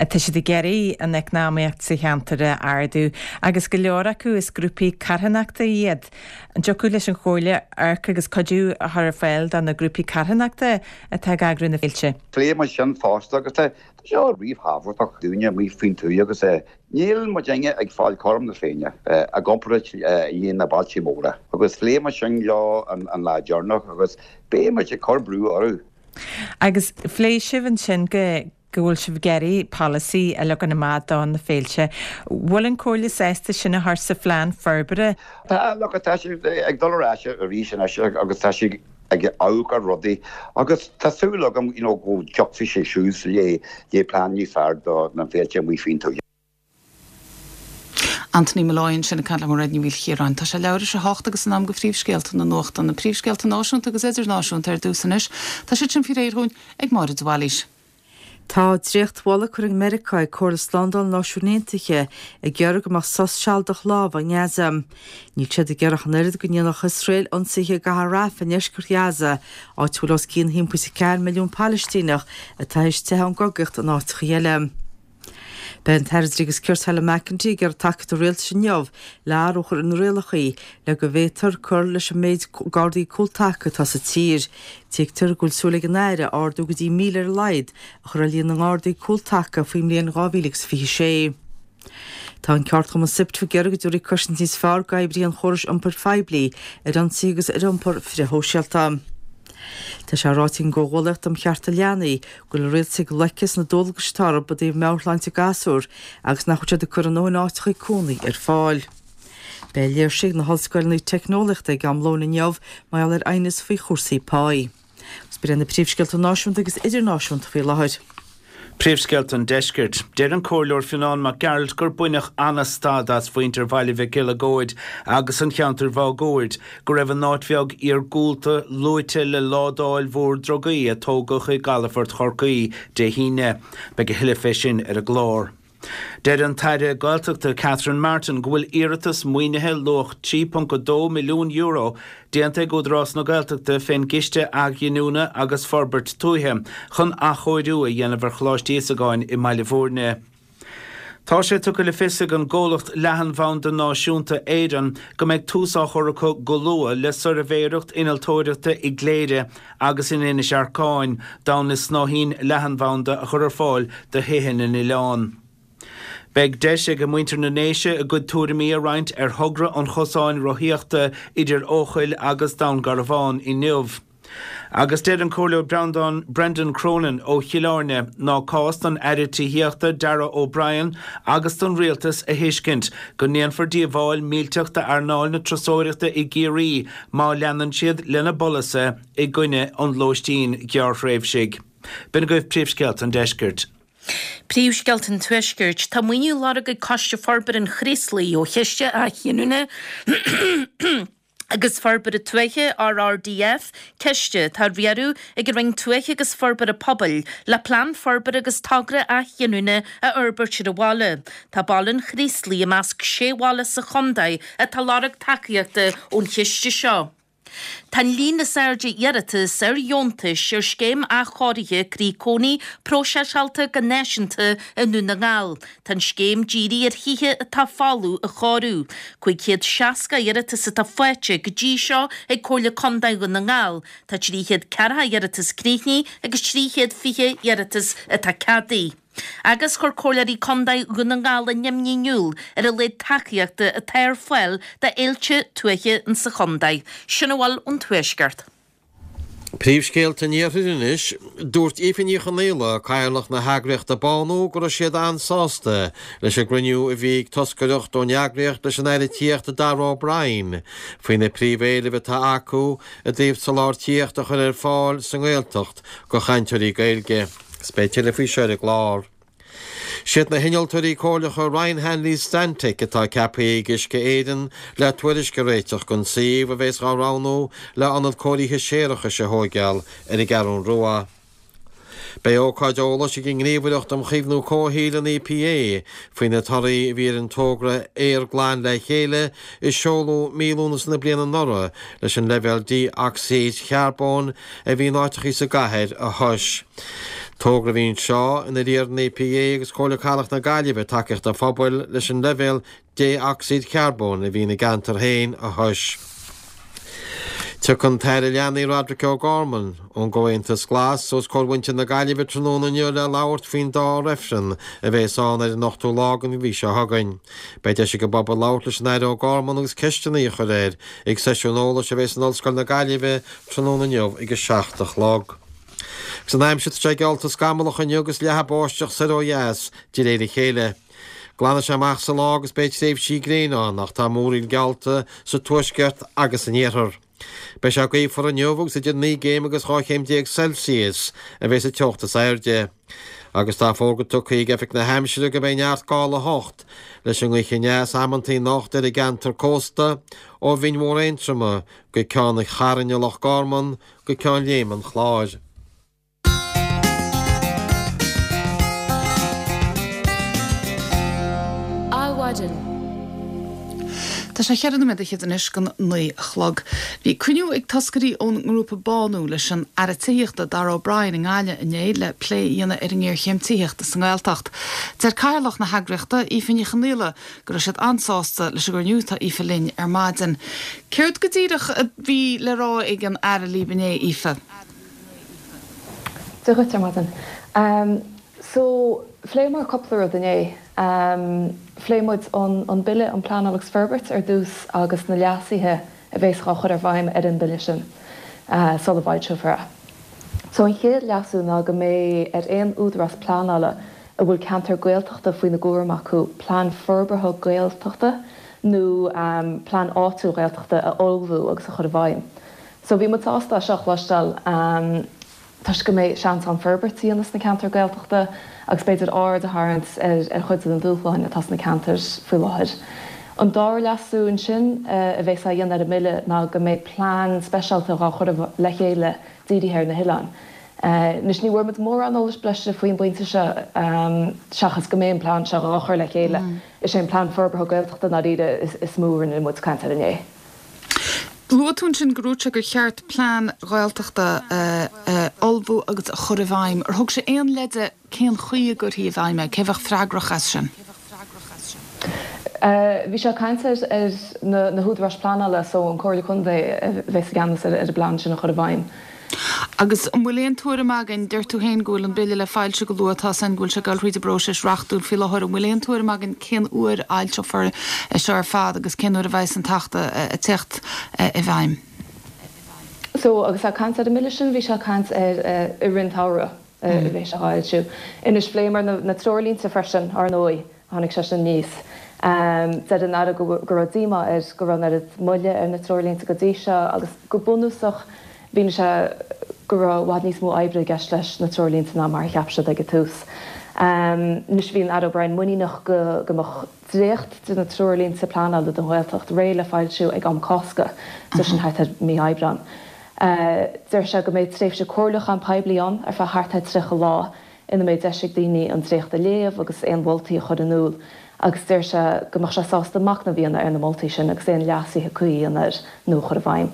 tá siad ag iarraidh an eacnamaíocht sa cheantar a ardú agus go leor acu is grúpaí carthanachta iad. An dtiocfadh leis an Chomhairle amharc agus cuidiú a chur ar fáil do na grúpaí carthanachta atá ag eagrú na féilte? Phléigh muid sin fosta agus tá seo ríthábhachtach dúinne amuigh faoin tuath agus Níl muidinne ag fáil cothrom na Féinne i gcomparáid le na bailte móra agus phléigh muid sin leo an lá deireanach agus beidh muid ag cur brú orthu. Agus phléigh sibh ansin go go bhfuil sibh ag iarraidh polasaí a leagan amach do na féilte. Bhfuil an Comhairle sásta sin a chur sa phlean forbartha? Tá, look, tá siad ag dul ar ais arís anois agus tá siad ag amharc ar rudaí agus tá súil agam you know go dtiocfaidh sé suas le le plean níos fearr do na féilte amuigh faoin tuath. Anthony Molloy ansin ag caint le Mairéad Ní Mhaoilchiaráin. Tá sé leathuair tar éis a hocht agus in am do phríomhscéalta na nuachta, na príomhscéalta náisiúnta agus idirnáisiúnta ar dtús anois. Tá siad sin faoi réir dhúinn ag Máire de Bhailís. Tá dréachtmholadh curtha ag Meiriceá ag Comhairle Slándála na Náisiún Aontaithe ag iarraidh go mbeadh sos sealadach lámhaigh i nGaza. Níl siad ag iarraidh ach an oiread go ndéanfadh Iosrael ionsaithe i gcathair Rafah i ndeisceart Ghaza, áit a bhfuil os cionn 1.4 milliún Palaistíneach atá théis teitheadh ón gcogaíocht in áiteacha eile. Beidh an tAire Dlí agus Cirt Helen McEntee ag iarraidh tacaíocht an Rialtais inniu le athrú a chur ar na rialacha le go bhféadfar cur leis an méid Gardaí Cúltaca atá sa tír. Tuigtear go bhfuil súil ag an Aire ardú go dtí 1,000 ar a laghad a chur ar líon na nGardaí Cúltaca faoin mbliain 2026. Tá an ceardchumann SIPTU ag iarraidh go dtabharfaí cosaint níos fearr d'oibrithe an chórais iompair phoiblí ar ionsaithe agus ar iompar frithshóisialta. Tá sé ráite ag an gComhghuallaíocht um Chearta Leanaí go bhfuil an rialtas ag loiceadh sna dualgais atá orthu i dtaobh meabhairshláinte gasúr agus nach bhfuil siad ag cur a ndóthain áiteacha cónaí ar fáil. Beidh léirse ag na hollscoileanna teicneolaíochta ag am lóin inniu mar gheall ar aighneas faoi chúrsaí páí. Agus b'in iad na príomhscéalta náisiúnta agus idirnáisiúnta faoi láthair. Príomhscéalta an Deiscirt. Deir an Comhairleoir Fionnán Mac Gearailt gur baineadh an-stad as mhuintir Bhaile Mhic Eileagóid agus an cheantair mháguaird go raibh an áit bheag iargúlta luaite le ládáil mhór drugaí a tógadh i gcalafort Chorcaí Dé hAoine. Beidh a thuilleadh fé sin ar an gclár. Deir an tAire Gaeltachta Catherine Martin go bhfuil iarratas maoinithe luach €3.2 milliún déanta ag Údarás na Gaeltachta fén gCiste Athghiniúna agus Forbairt Tuaithe chun athchóiriú a dhéanamh ar Choláiste Íosagáin i mBaile Bhúirne. Tá sé tugtha le fios ag an gcomhlacht leathanbhanda náisiúnta Éireann go mbeidh tús á chur acu go luath le suirbhéireacht innealtóireachta i gCléire agus in Inis Arcáin d'fhonn na snáithín leathanbhanda a chur ar fáil do thithe na n-oileán. Beidh deis ag muintir na nDéise a gcuid tuairimí a roinnt ar thogra an chosáin rothaíochta idir Eochaill agus Dún Garbhán inniu. Agus deir an Comhairleoir Breandán Brendan Cronin ó Chill Airne ná cás don Aire Tithíochta Darragh O'Brien agus don Rialtas a thuiscint go ndéanfar díobháil millteach d'earnáil na turasóireachta i gCiarraí má leanann siad lena bpolasaithe i gcoinne an lóistín ghearrthréimhsigh. B'in agaibh príomhscéalta an deiscirt. Príomhscéalta an Tuaiscirt. Tá maoiniú á lorg ag Coiste Forbartha an Chraoslaigh ó Chiste Athghiniúna agus Forbartha Tuaithe, RRDF, ciste atá á riaradh ag an Roinn Tuaithe agus Forbartha Pobail, le plean forbartha agus togra athghiniúna a fhorbairt ar an bhaile. Tá baile an Chraoslaigh i measc sé bhaile sa chontae atá ag lorg tacaíochta ón chiste seo. Tá an líon is airde iarratas ar dheontais ar scéim athchóirithe Croí Cónaí próiseáilte go náisiúnta i nDún na nGall. Tá an scéim dírithe ar thithe atá folamh a chóiriú. 560 iarratas atá faighte go dtí seo ag Comhairle Contae Dhún na nGall. Tá 340 iarratas críochnaithe agus 320 iarratas atá ceadaithe. Agus chuir Comhairleoirí Contae Dhún na nGall a n-imní in iúl ar a laghad tacaíochta atá ar fáil do fhéilte tuaithe insa chontae. Sin a bhfuil ón Tuaisceart. Príomhscéalta an Iarthair anois. Dúirt Aoife Ní Chonaola, Cathaoirleach na heagraíochta Bánú, go raibh siad an-sásta leis an gcruinniú a bhí ag toscaireacht ón eagraíocht leis an Aire Tithíochta Darragh O'Brien faoi na príomhéilimh atá acu i dtaobh soláthar tithíochta a chur ar fáil sa nGaeltacht do chainteoirí Gaeilge. Is beidh tuilleadh faoi seo ar an gclár. Siad na hinnealtóirí comhairleacha Ryan Hanley Stantec atá ceaptha ag Uisce Éireann le tuairisc a réiteach don suíomh a bheas á roghnú le ionad cóirithe séarachais a thóigeáil ar an gCeathrún Rua. Beidh ócáid eolais ag an nGníomhaireacht um Chaomhnú Comhshaoil, an EPA, faoi na torthaí a bhí ar an togra Aer Glan le Chéile a seoladh mí Lúnasa na bliana anuraidh leis an leibhéal dé-ocsaíd charbóin a bhí in áiteachaí sa gcathair a thomhas. Togra a bhí anseo inar iarr an EPA agus Comhairle Cathrach na Gaillimhe tacaíocht an phobail leis an leibhéal dé-ocsaíd charbóin a bhí ina gceantar féin a thomhas. Tiocfaidh an tAire Leanaí Roderic O'Gorman ón gComhaontas Glas os comhair mhuintir na Gaillimhe tráthnóna inniu le labhairt faoin dá reifreann a bheas ann ar an ochtú lá den mhí seo chugainn. Beidh deis ag an bpobal labhairt leis an Aire O'Gorman agus ceisteanna a chur air ag seisiún eolais a bheas in Ollscoil na Gaillimhe tráthnóna inniu ag a 7 a chlog. Agus an aimsir tá sé geallta scamallach inniu agus leathadh báisteach soir ó dheas de réir a chéile. Glanfaidh sé amach sa lá agus beidh tréimhsí gréine ann ach tá múraíl geallta sa tuaisceart agus san iarthar. Beidh sé gaofar inniu agus idir 9 gcéim agus 12 chéim Celsius a bheas an teocht is airde. Agus tá fógra tugtha ag Oifig na hAimsire go mbeidh neart gála 8 leis an ngaoth aneas amantaí anocht ar an gceantar cósta ó Bhinn Mhór Aontroma go Ceann an Chairn i Loch Garman go Ceann Léime an Chláir. Adhmhaidin. Tá sé cheithre nóiméad fhichead anois don 9 a chlog. Bhí cruinniú ag toscairí ón ngrúpa Bánú leis an Aire Tithíochta, Darragh O'Brien i nGaillimh inné le plé a dhéanamh ar an ngéarchéim tithíochta sa nGaeltacht. Deir Cathaoirleach na heagraíochta, Aoife Ní Chonaola, go raibh siad an-sásta leis an gcruinniú. Tá Aoife linn ar maidin. Céard go díreach a bhí le rá ag an Aire libh inné, Aoife? Dia dhuit ar maidin. So, phléamar cúpla rud inné. Phléigh muid an Bille um Pleanáil agus Forbairt ar dtús agus na leasuithe a bhéas dhá chur ar bhfeidhm ar an mBille sin sula bhfoilseofar é. So an chéad leasú ná go mbeidh ar aon údarás pleanála a bhfuil ceantar Gaeltachta faoina gcúram acu plean forbartha Gaeltachta nó plean áitiúil Gaeltachta a ullmhú agus a chur i bhfeidhm. So bhí muid sásta é seo a chloisteáil toisc go mbeidh seans ann forbairt a dhéanamh sna ceantair Gaeltachta agus b'fhéidir aird a tharraingt ar chuid de na dúshláin atá sna ceantair faoi láthair. An dara leasú ansin a bhéas á dhéanamh ar an mBille ná go mbeidh plean speisialta dhá chur le chéile dírithe ar na hoileáin. Anois ní bhfuair muid mórán eolais breise faoin bpointe seo seachas go mbeidh an plean seo dhá chur le chéile. Is é an plean forbartha Gaeltachta i ndáiríre is mó a rinne muid caint air inné. Luaigh tú ansin gur dhúirt sé gur cheart plean Gaeltachta a ullmhú agus a chur i bhfeidhm. Ar thug sé aon leide cén chaoi a gcuirfí i bhfeidhm é? Cé a bheadh freagrach as sin? Bhí sé ag caint ar na húdaráis pleanála so an Comhairle Contae a bheas i gceannas ar an bplean sin a chur i bhfeidhm. Agus an bhfuil aon tuairim againn, deir tú féin go bhfuil an Bille le foilsiú go luath, tá a fhios againn go bhfuil sé ag dul thríd an bpróiseas reachtúil faoi láthair, an bhfuil aon tuairim againn cén uair a fhoilseofar é seo ar fad agus cén uair a bheas an tAcht ag teacht i bhfeidhm? So, agus é ag caint ar an mBille sin, bhí sé ag caint ar i rith an tsamhraidh a bheidh sé á fhoilsiú. Anois, phléamar na treoirlínte freisin, ar ndóigh. Tháinig sé sin aníos. Deir an Aire go raibh díomá air go raibh an oiread moille ar na treoirlínte go dtí seo agus go bunúsach mhínigh sé go raibh i bhfad níos mó oibre i gceist leis na treoirlínte ná mar a cheap siad ag an tús. Anois bhí an Aire O'Brien muiníneach go mbeadh dréacht de na treoirlínte pleanála don Ghaeltacht réidh le foilsiú ag am Cásca, so sin thart ar mí Aibreáin. Deir sé go mbeidh tréimhse comhairliúcháin poiblí ann ar feadh thart ar 30 lá ina mbeidh deis ag daoine an dréacht a léamh agus aon mholtaí a chur in iúl agus deir sé go mbeadh sé sásta machnamh a dhéanamh ar na moltaí sin agus aon leasuithe cuí a dhéanamh air nó a chur i bhfeidhm.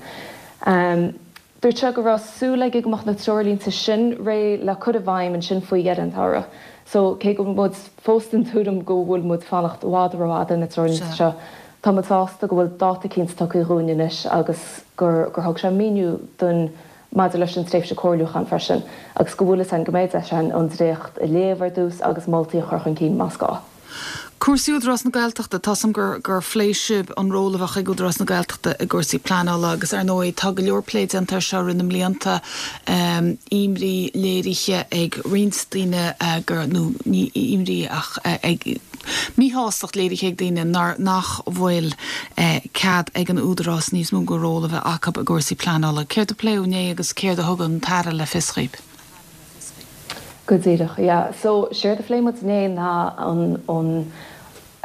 Dúirt sé go raibh súil aige go mbeadh na treoirlínte sin réidh le cur i bhfeidhm ansin faoi dheireadh an tsamhraidh. So, cé go bhfuil muid fós den tuairim go bhfuil muid fanacht i bhfad rófhada ar na treoirlínte seo, tá muid sásta go bhfuil dáta cinnte tugtha dhúinn anois agus gur gur thug sé míniú dúinn maidir leis an tréimhse comhairliúcháin freisin agus go bhfuil fhios againn go mbeidh deis againn an dréacht a léamh ar dtús agus moltaí a chur chun cinn más gá. Cúrsaí Údarás na Gaeltachta, tá 's a'm gur gur phléigh sibh an ról a bheadh ag Údarás na Gaeltachta i gcúrsaí pleanála agus ar ndóigh tá go leor plé déanta air seo i rith na mblianta, imní léirithe ag roinnt daoine gur, nó ní imní ach ag, míshástacht léirithe ag daoine nár, nach bhfuil cead ag an Údarás níos mó de ról a bheith acu i gcúrsaí pleanála. Céard a pléadh inné agus céard a thug an tAire le fios dhaoibh? Go díreach, yeah. So, séard a phléigh muid inné ná an, an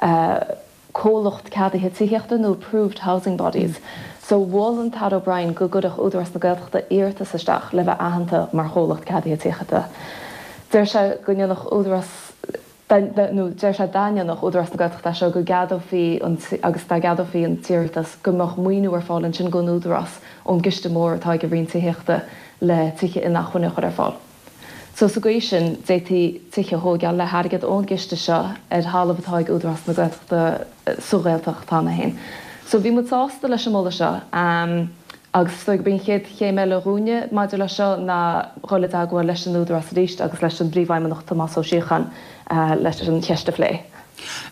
eh comhlacht ceadaithe tithíochta nó approved housing bodies. So, mhol an tAire O'Brien go gcuirfeadh Údarás na Gaeltachta iarratas isteach le bheith aitheanta mar chomhlacht ceadaithe tithíochta. Deir sé go ndéanfadh Údarás, nó deir sé dá ndéanfadh Údarás na Gaeltachta é seo go gceadófaí an, agus dá gceadófaí an t-iarratas go mbeadh maoiniú ar fáil ansin don Údarás ón gciste mór atá ag an Roinn Tithíochta le tithe inacmhainne a chur ar fáil. So sa gcaoi sin, d'fhéadfaí tithe a thóigeáil le hairgead ón gciste seo ar thalamh atá ag Údarás na Gaeltachta sa Ghaeltacht cheana féin. So bhí muid sásta leis an moladh seo agus is dóigh gurb í an chéad chéim eile dhúinne maidir leis seo ná dhul i dteagmháil leis an Údarás arís agus leis an bPríomhfheidhmeannach Tomás Ó Síocháin leis an cheist a phlé.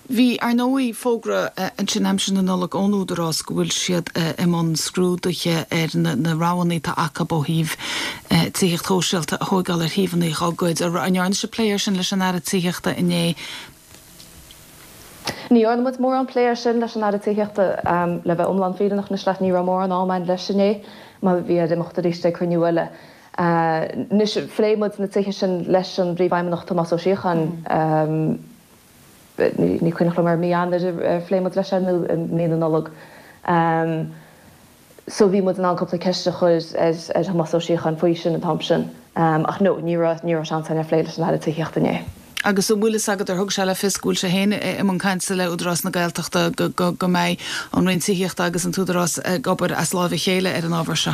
Bhí, ar ndóigh, fógra ansin aimsir na Nollag ón Údarás go bhfuil siad i mbun scrúduithe ar na roghanna atá acu ó thaobh tithíocht shóisialta a thóigeáil ar shuíomhanna dá gcuid. An ndearna sibh plé air sin leis an Aire Tithíochta inné? Ní dhearna muid mórán plé air sin leis an Aire Tithíochta. Le bheith iomlán fírinneach anois leat, ní raibh mórán ama againn leis inné mar bhí air imeacht arís ag cruinniú eile. Anois, phléigh muid na tithe sin leis an bPríomhfheidhmeannach Tomás Ó Síocháin. Ní cuimhneach liom ar mí Eanáir a phléigh muid leis é nó i mí na Nollag. So bhí muid in ann cúpla ceist a chur ar Thomás Ó Síocháin faoi sin an t-am sin. Ach no, ní raibh, ní raibh seans againn ar phlé leis an Aire Tithíochta inné. Agus an bhfuil fhios agat ar thug sé le fios go bhfuil sé féin i mbun cainte le Údarás na Gaeltachta go go mbeidh an Roinn Tithíochta agus an tÚdarás ag obair as láimh a chéile ar an ábhar seo?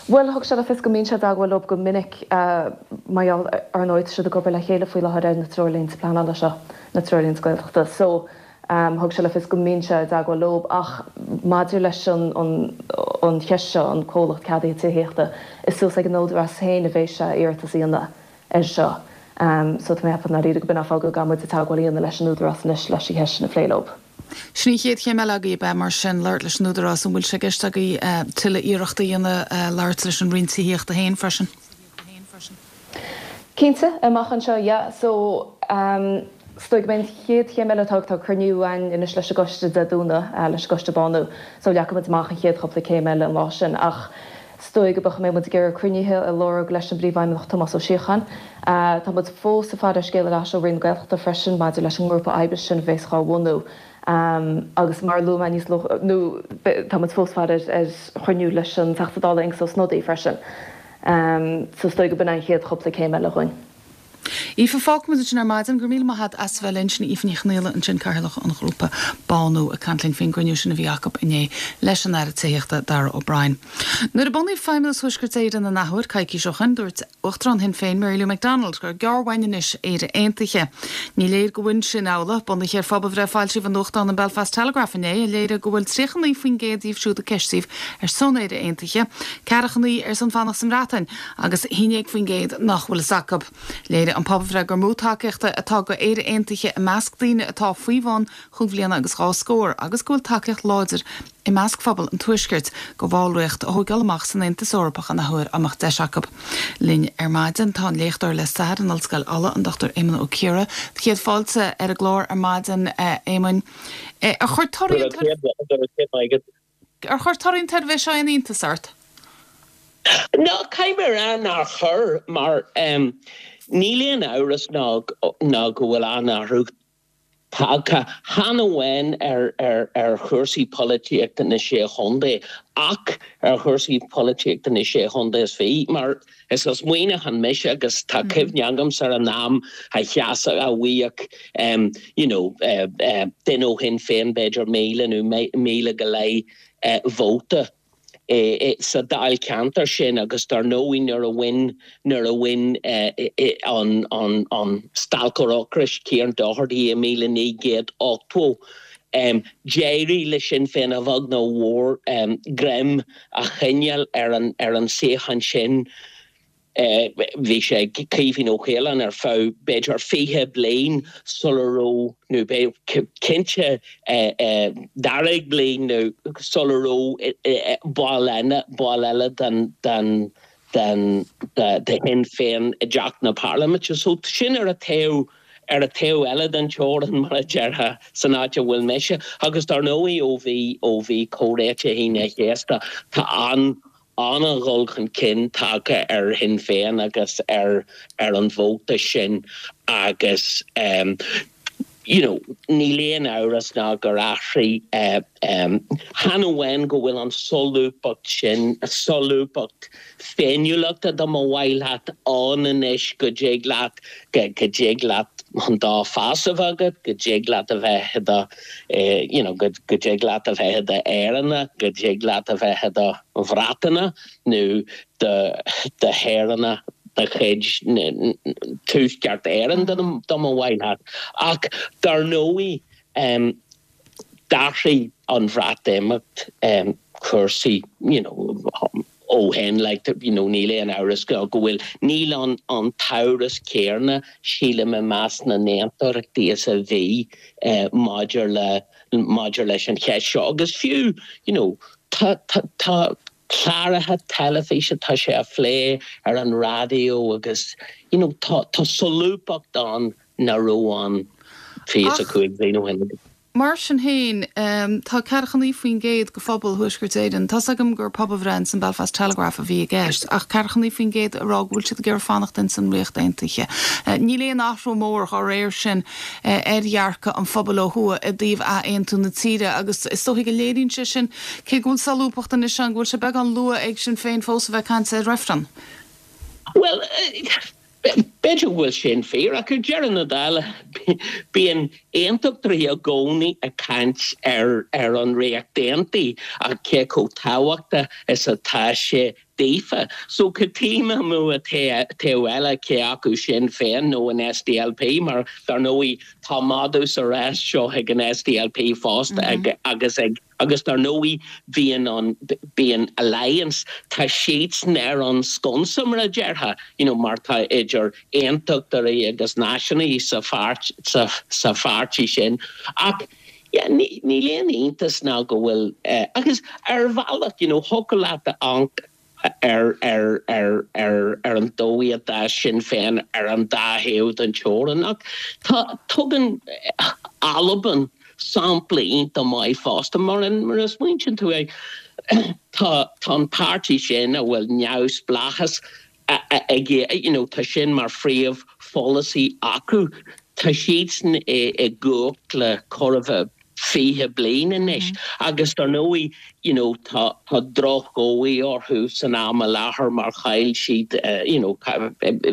Bhuel, thug sé le fios go mbíonn sé i dteagmháil leo go minic mar gheall, ar ndóigh, tá siad ag obair le chéile faoi láthair ar na treoirlínte pleanála seo, na treoirlínte Gaeltachta. So, thug sé le fios go mbíonn sé i dteagmháil leo. Ach maidir leis an an cheist seo, an comhlacht ceadaithe tithíochta, is suas ag an Údarás féin a bheidh sé iarratas a dhéanamh air seo. So, tá mé ag ceapadh i ndáiríre go b'in an fáth go gcaithfidh muid teagmháil a dhéanamh leis an Údarás anois leis an cheist sin a phlé leo. Sin í an chéad chéim eile agaibh, ab ea, mar sin, labhairt leis an Údarás. An bhfuil sé i gceist agaibh tuilleadh iarrachta a dhéanamh labhairt leis an Roinn Tithíochta féin freisin? Cinnte, amach anseo, yeah. So, is dóigh go mbeidh an chéad chéim eile atá, tá cruinniú againn anois leis an gcoiste Dé Domhnaigh, leis an gcoiste Bánú. So, leagfaidh muid amach an chéad chúpla céim eile an lá sin. Ach is dóigh go mbeidh muid ag iarraidh cruinnithe a lorg leis an bPríomhfheidhmeannach Tomás Ó Síocháin. Tá muid fós ag faire ar scéal ar ais ó Roinn na Gaeltachta freisin maidir leis an ngrúpa oibre sin a bhéas dhá bhunú agus mar a luaigh mé níos luaithe, nó tá muid fós ag faire ar chruinniú leis an Teachta Dála Aengus Ó Snodaigh freisin. So is dóigh go b'in an chéad chúpla céim eile dhúinn. Aoife, fágfaimid ansin ar maidin. Go raibh míle maith agat as a bheith linn. Sin Aoife Ní Chonaola ansin, Cathaoirleach an ghrúpa Bánú, ag caint linn faoin gcruinniú sin a bhí acu inné leis an Aire Tithíochta, Darragh O'Brien. Nuair a bunaíodh Feidhmeannas Thuaisceart Éireann an athuair, coicís ó shin, dúirt Uachtarán Shinn Féin, Mary Lou McDonald, gur gearr uainn anois Éire Aontaithe. Ní léir go bhfuil sin amhlaidh. Bunaithe ar phobalbhreith a foilsíodh i nuachtán an Belfast Telegraph inné, a léirigh go bhfuil 39% díobh siúd a ceistíodh ar son Éire Aontaithe, 49 ar son fanacht sa mBreatain agus 11% nach bhfuil fhios acu. Léirigh an pobalbhreith gur mó tacaíochta atá go Éire Aontaithe i measc daoine atá faoi bhun chúig bhliana agus dhá scór agus go bhfuil tacaíocht láidir i measc phobal an Tuaiscirt go bhallraíocht a thóigeáil amach san Aontas Eorpach an athuair dá mbeadh deis acu. Linn ar maidin tá an léachtóir le stair in Ollscoil Uladh, an Dr Éamonn Ó Ciardha. Céad fáilte ar an gclár ar maidin, a Éamoinn. Ar chuir torthaí an Ar chuir torthaí an tsuirbhé seo aon iontas ort? No, caithfidh mé a rá nár chuir, mar níl aon amhras ná go bhfuil an-athrú tagtha, chan amháin ar chúrsaí polaitíochta na Sé Chontae, ach ar chúrsaí polaitíochta na Sé Chontae is fiche, mar is as Muineachán mise agus tá cuimhne agamsa ar an am a sheasadh, a bhfaigheadh you know duine ó Shinn Féin b'fhéidir 1,000 nó 1,000 go leith vóta. Sa dáilcheantar sin agus dar ndóigh nuair a bhain nuair a bhain an an an stailceoir ocrais Kieran Doherty i 1980 d'éirigh le Sinn Féin a bheag nó a mhór greim a choinneáil ar an ar an suíochán sin. Bhí sé ag Caoimhín Ó Caoláin ar feadh b'fhéidir 20 bliain sula raibh, nó cinnte daichead bliain nó sula raibh ball eile, ball eile den, den, den, de Shinn Féin i dTeach na Parlaiminte. So sin ar an taobh, ar an taobh eile den teorainn mar a déarfá, san áit a bhfuil mise. Agus dar ndóigh ó bhí, ó bhí Comhréiteach Aoine an Chéasta, tá an, an-dhul chun cinn tagtha ar Shinn Féin agus ar ar an vóta sin agus you know níl aon amhras ná gur athraigh chan amháin go bhfuil an solúbthacht sin, solúbthacht féiniúlachta dá mba mhaith leat ann anois go dtig leat go dtig leat an dá phas a bheith agat, go dtig leat a bheith i do you know go dtig leat a bheith i do Éireannach, go dtig leat a bheith i do Bhreatanach nó do do shaoránach de chuid Tuaisceart Éireann dá mba mhaith leat. Ach dar ndóigh d'athraigh an Bhreatimeacht cúrsaí you know ó shin like you know níl aon amhras go bhfuil, níl an an t-amhras céarna sílim i measc na n-aontachtaí is a bhí maidir le maidir leis an cheist seo agus fiú you know tá tá tá cláracha teilifíse tá sé á phlé ar an raidió agus you know tá tá solúbthacht ann nach raibh ann 25 bliain ó shin. Mar sin féin, tá 49% de phobal Thuaisceart Éireann, tá's agam gur pobalbhreith ins an Belfast Telegraph a bhí i gceist, ach 49% ag rá go bhfuil siad ag iarraidh fanacht ins an Ríocht Aontaithe. Níl aon athrú mór dá réir sin ar dhearcadh an phobail ó thuaidh i dtaobh athaontú na tíre agus is dóichí go léiríonn sé sin, cé go bhfuil solúbthacht anois ann, go bhfuil sé beagán luath ag Sinn Féin fós a bheith ag caint ar reifreann. Bhuel, B'fhéidir go bhfuil sin fíor, ach ar deireadh na dála, bíonn aontachtóirí i gcónaí ag caint ar ar an Ríocht Aontaithe ach cé chomh tábhachtach is atá sé daofa. So cad tuigim amuigh an taobh eile, cé acu Sinn Féin nó an SDLP, mar dar ndóigh tá madadh sa rás seo ag an SDLP fosta agus ag Agus dar ndóigh bíonn an, bíonn Alliance, tá siadsan ar an sconsa mar a déarfá, you know mar tá idir aontachtóirí agus náisiúnaithe sa pháirt, sa, sa pháirtí sin. Ach yeah, ní, níl aon iontas ná go bhfuil eh, agus ar bhealach, you know, thiocfadh leat a amharc ar ar ar ar ar an dóigh a d'fhás Sinn Féin ar an dá thaobh den teorainn. Ach tá, tugann Albain sampla iontach maith fosta mar mar a smaointíonn tú air, tá tá an páirtí sin a bhfuil neamhspleáchas ag you know tá sin mar phríomhpholasaí acu, tá siadsan i i gcumhacht le chóir a bheith 20 bliain anois agus dar ndóigh you know tá tá drochdhóigh orthu san am i láthair mar chaill siad you know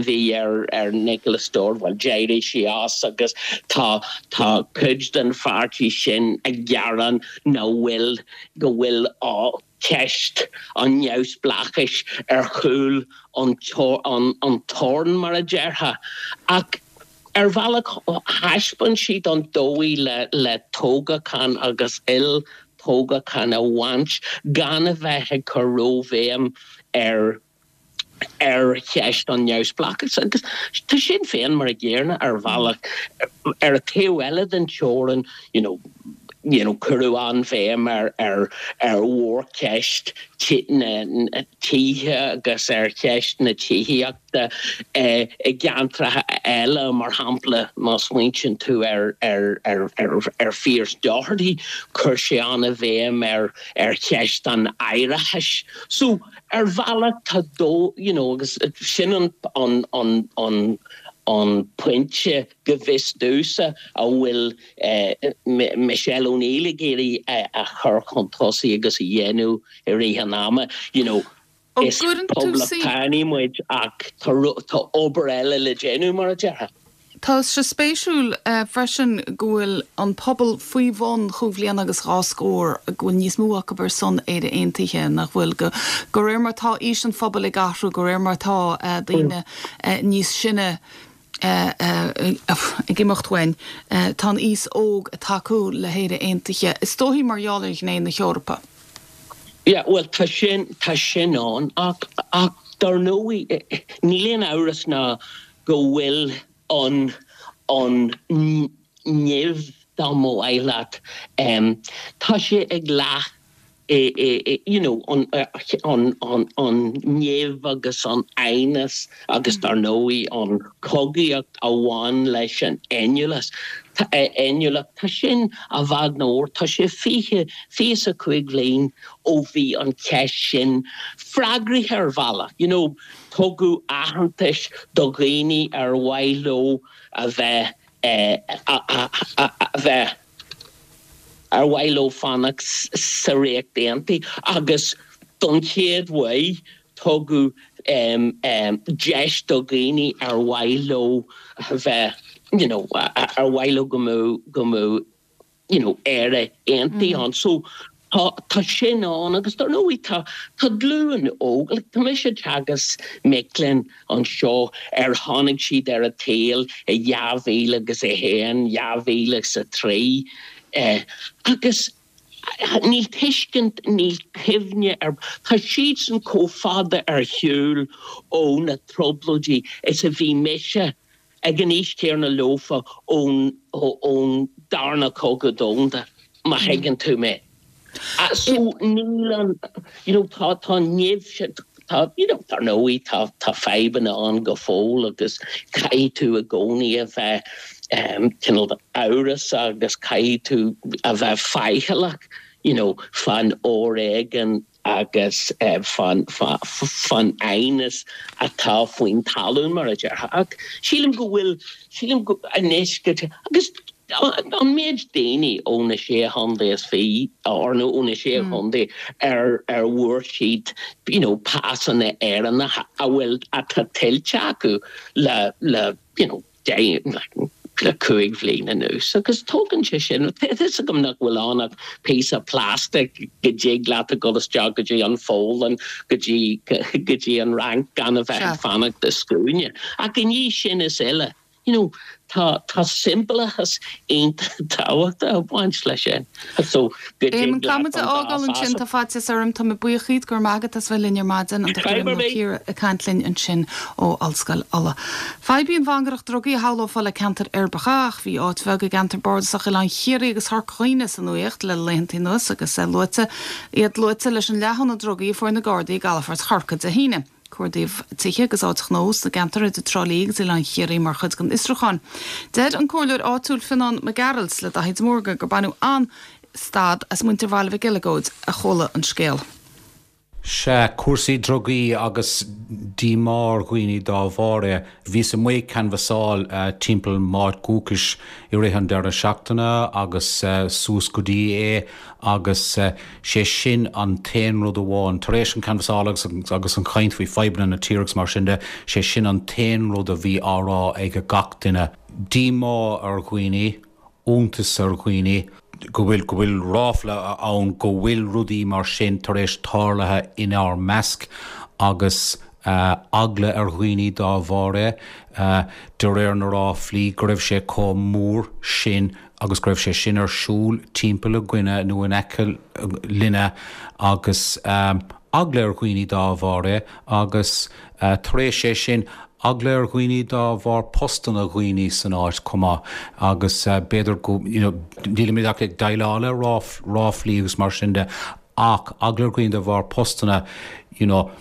bhí ar ar Nicola Sturgeon bhuel d'éirigh sí as agus tá tá cuid den pháirtí sin ag gearán nach bhfuil go bhfuil ceist an neamhspleáchais ar chúl an an toirn, mar a déarfá. Ach ar bhealach thaispeáin siad an dóigh le le toghachán agus il-toghachán a bhaint gan a bheith ag cur róbhéim ar ar cheist an neamhspleáchais agus tá Sinn Féin mar a gcéanna ar bhealach. Ar an taobh eile den teorainn, you know, you know, cuireadh an-bhéim ar ar ar mhórcheist na tithe agus ar cheist na tithíochta i gceantracha eile, mar shampla, má smaointíonn tú ar ar ar ar ar Phearse Doherty, chuir sé an-bhéim ar ar cheist an áireachais. So, Ar bhealach tá dó, you know, agus sin an, an, an, an, an pointe go bhfios domhsa a bhfuil Michelle O'Neill ag iarraidh a chur chun tosaigh agus a dhéanamh i rith an ama, you know, is poblachtánaigh muid ach tá, tá obair eile le déanamh, mar a déarfá. Tá sé spéisiúil freisin go bhfuil an pobal faoi bhun chúig bhliana agus dhá scór, go bhfuil níos mó acu ar son Éire Aontaithe, nach bhfuil? De réir mar atá aois an phobail ag athrú, de réir mar atá daoine níos sine ag imeacht uainn, tá an aos óg ag tacú le hÉire Aontaithe, is dóichí mar gheall ar ghné na hEorpa. Yeah, bhuel, tá sin, tá sin ann, ach, ach dar ndóigh, níl aon amhras ná go bhfuil an, an nimh, dá mba mhaith leat, tá sé ag leath you know, an, an, an, an nimh agus an aighneas agus dar ndóigh an chogaíocht a bhain leis an fhéiniúlacht, fhéiniúlacht, tá sin i bhfad nó tá sé 20, 25 bhliain ó bhí an cheist sin freagraithe ar bhealach, you know, tugadh aitheantas do dhaoine ar mhaith leo a bheith, a bheith. ar mhaith leo fanacht sa Ríocht Aontaithe agus don chéad uair tugadh deis do dhaoine ar mhaith leo a bheith you know ar mhaith leo go mbeadh go mbeadh you know Éire aontaithe ann. So tá tá sin ann agus dar ndóigh tá tá glúin óg like tá mise ag teagasc mic léinn anseo ar tháinig siad ar an tsaol i 2001, 2003 agus níl tuiscint, níl cuimhne ar, tá siadsan chomh fada ar shiúl ó na trioblóidí is a bhí mise ag an aois chéanna leofa ón ón darna cogadh domhanda, má thuigeann tú mé. So níl an, you know, tá tá an nimh sin, tá, you know, dar ndóigh tá tá fadhbanna ann go fóill agus caithfidh tú i gcónaí a bheith cineál amhrasach agus caithfidh tú a bheith faichilleach, you know, fán fhoréigean agus fán fán aighneas atá faoin talún, mar a déarfá. Ach sílim go bhfuil, sílim go, anois go, agus an méid daoine ó na Sé Chontae is Fiche, or nó ó na Sé Chontae ar ar bhfuair siad you know pasanna Éireannacha a bhfuil, atá tuillte acu le le you know le 5 bhliain anuas agus tógann sé sin, tá a fhios agam nach bhfuil ann ach píosa plastic go dtig leat a dhul isteach go dtí an Pholainn, go dtí go dtí an Fhrainc gan a bheith ag fanacht i scuaine. Ach i ndiaidh sin is uile, you know, tá tá siombalachas iontach tábhachtach ag baint leis sin. So go dtig leat an dá Caithfidh muid a fhágáil ansin, tá faitíos orm, tá mé buíoch díot, go raibh maith agat as bheith linn ar maidin, an Dr. Éamonn Ó Ciardha ag caint linn ansin ó Ollscoil Uladh. Fadhb í an mhangaireacht drugaí a shamhlófá le ceantair uirbeacha ach bhí áit bheag i gceantar bardasach Oileán Chiarraí agus Chorca Dhuibhne sa nuaíocht le laethanta anuas agus luaite iad luaite leis an leathghunna drugaí a fuair na Gardaí i gcalafort Chorcaí Dé hAoine. Cuardaíodh tithe agus áit ghnó sna gceantar idir Trá Lí agus Oileán Chiarraí mar chuid den fhiosrúchán. Deir an comhairleoir áitiúil Fionnán Mac Gearailt le Daithí de Mórdha gur baineadh an-stad as muintir Bhaile Mhic Eileagóid a chuala an scéal. Sea, cúrsaí drugaí agus díomá ar dhaoine dá bharr é. Bhíos amuigh ag canbhasáil timpeall m'áit dhúchais i rith an deireadh seachtaine agus suas go dtí é agus sé sin an t-aon rud amháin, tar éis an canbhasáil agus agus an chaint faoi fadhbanna na tíre agus mar sin de, sé sin an t-aon rud a bhí á rá ag gach duine. Díomá ar dhaoine. iontas ar dhaoine go bhfuil, go bhfuil ráfla ann go bhfuil rudaí mar sin tar éis tarlaithe inár measc agus eagla ar dhaoine dá bharr é, de réir na ráflaí, go raibh sé chomh mór sin agus go raibh sé sin ar siúl timpeall againne nó in aice linne agus eagla ar dhaoine dá bharr é agus tar éis é sin Eagla ar dhaoine dá bharr postanna dhaoine san áit chomh maith agus b'fhéidir go, you know, nílimid ach ag déileáil le ráflaí agus mar sin de ach eagla ar dhaoine de bharr postanna, you know,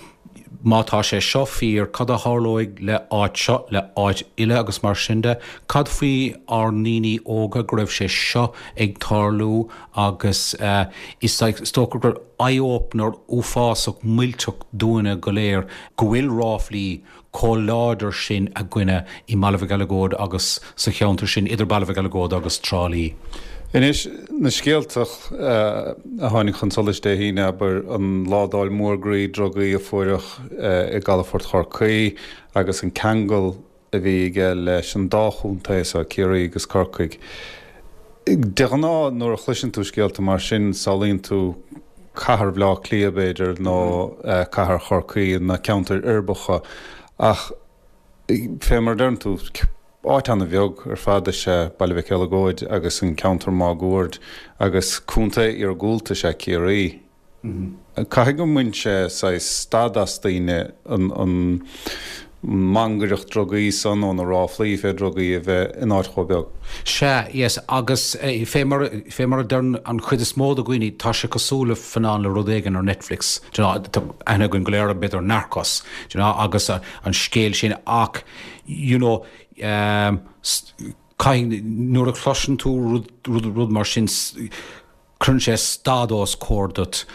má tá sé seo fíor, cad a tharlóidh le áit seo, le áit eile agus mar sin de. Cad faoi ár ndaoine óga go raibh sé seo ag tarlú agus is dócha gur eye-opener uafásach millteach dúinne go léir go bhfuil ráflaí chomh láidir sin againne i mBaile Mhic Eileagóid agus sa cheantar sin idir Baile Mhic Eileagóid agus Trá Lí. Anois, na scéalta a tháinig chun solais Dé hAoine, abair, an ládáil mhór groí drugaí a fuaireadh i gcalafort Chorcaí agus an ceangal. a bhí aige leis an dá chontae so, Ciarraí agus Corcaigh. De ghnáth nuair a chloiseann tú scéalta mar sin samhlaíonn tú cathair Bhaile Átha Cliath b'fhéidir nó cathair Chorcaí, na ceantair uirbeacha ach fé mar a deireann tú, áit ana-bheag ar fad is ea Baile Mhic Eileagóid agus an ceantar máguaird agus contae iargúlta is ea Ciarraí. Caithfidh go mbain sé saghas stad as daoine an mhangaireacht drugaí san nó na ráflaí fé drugaí a bheith in áit chomh beag. Sea, yes, agus fé mar, fé mar a deireann an chuid is mó de dhaoine, tá sé cosúil le fannán le rud éigin ar Netflix, do you know, tá aithne againn go léir ar b'fhéidir Narcos, do you know, agus an scéal sin ach, you know, caithfidh, nuair a chloiseann tú rud, rud, rud mar sin, Cuireann sé stad os comhair duit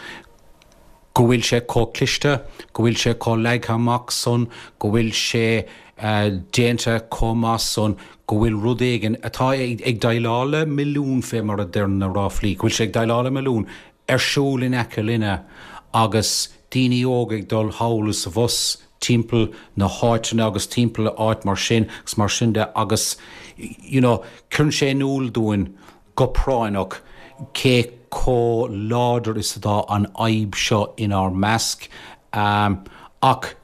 go bhfuil sé chomh cliste, go bhfuil sé chomh leagtha amach san, go bhfuil sé déanta chomh maith san, go bhfuil rud éigin atá ag déileáil le milliún fé mar a deir na ráflaí, go bhfuil sé ag déileáil le milliún ar siúl in aice linne agus daoine óga ag dul thall is abhus timpeall na háiteanna agus timpeall áit mar sin agus mar sin de agus you know cuireann sé in iúl dúinn go práinneach cé chomh láidir is atá an fhadhb seo inár measc. Ach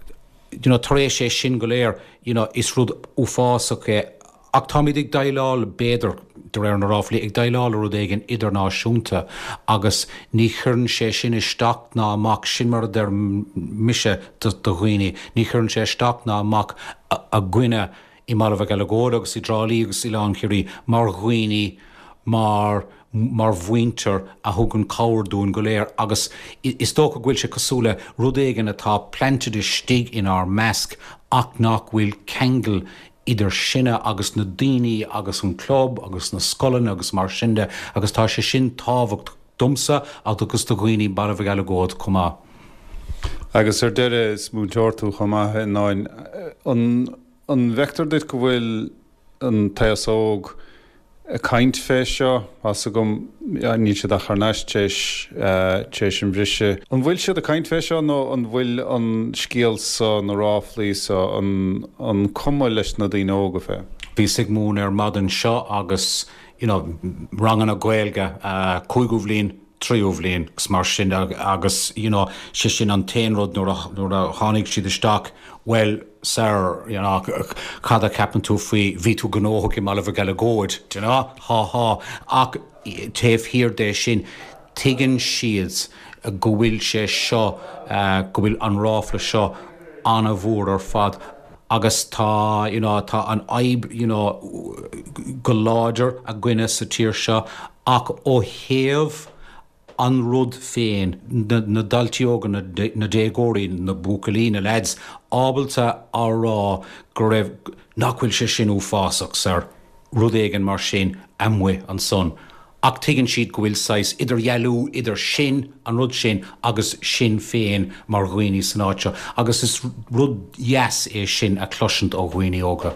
you know tar éis é sin go léir you know is rud uafásach é ach táimid ag déileáil, b'fhéidir, de réir na ráflaí, ag déileáil le rud éigin idirnáisiúnta agus ní chuireann sé sin isteach ná amach, sin mar a deir mise do dhaoine, ní chuireann sé isteach ná amach againne i mBaile Mhic Eileagóid agus i dTrá Lí agus Oileán Chiarraí mar dhaoine, mar mar mhuintir a thugann cabhair dúinn go léir agus is dócha go bhfuil sé cosúil le rud éigin atá planted istigh inár measc ach nach bhfuil ceangal idir sinne agus na daoine agus an club agus na scoileanna agus mar sin de agus tá sé sin tábhachtach domsa agus do dhaoine i mBaile Mhic Eileagóid chomh maith. Agus ar deireadh, is múinteoir tú chomh maith, a Fhionnáin. An An bhfeictear duit go bhfuil an t-aos óg ag caint fé seo? Tá's agam, níl siad ach thar n-ais tar éis an bhriseadh. An bhfuil siad ag caint fé seo nó an bhfuil an scéal so, na ráflaí so, an an cuma leis na daoine óga fé? Bhíos ag múineadh ar maidin seo agus you know ranganna Gaeilge, cúigiú bhliain, tríú bhliain agus mar sin de agus you know sé sin an t-aon rud nuair a nuair a tháinig siad isteach well sir you know cad a cheapann tú faoi bhí tú gnóthach i mBaile Mhic Eileagóid do you know há há ach taobh thiar de sin tuigeann siad go bhfuil sé seo go bhfuil an ráfla seo an-mhór ar fad agus tá you know tá an fhadhb you know go láidir againne sa tír seo Ach ó thaobh an rud féin, na daltaí óga, na déagóirí, na buachaillí, na leaids, ábalta a rá go raibh, nach bhfuil sé sin uafásach, sir, rud éigin mar sin amuigh ansan. Ach tuigeann siad go bhfuil saghas idirdhealú idir sin, an rud sin, agus sinn féin mar dhaoine san áit seo. Agus is rud dheas é sin a chloisint ó dhaoine óga.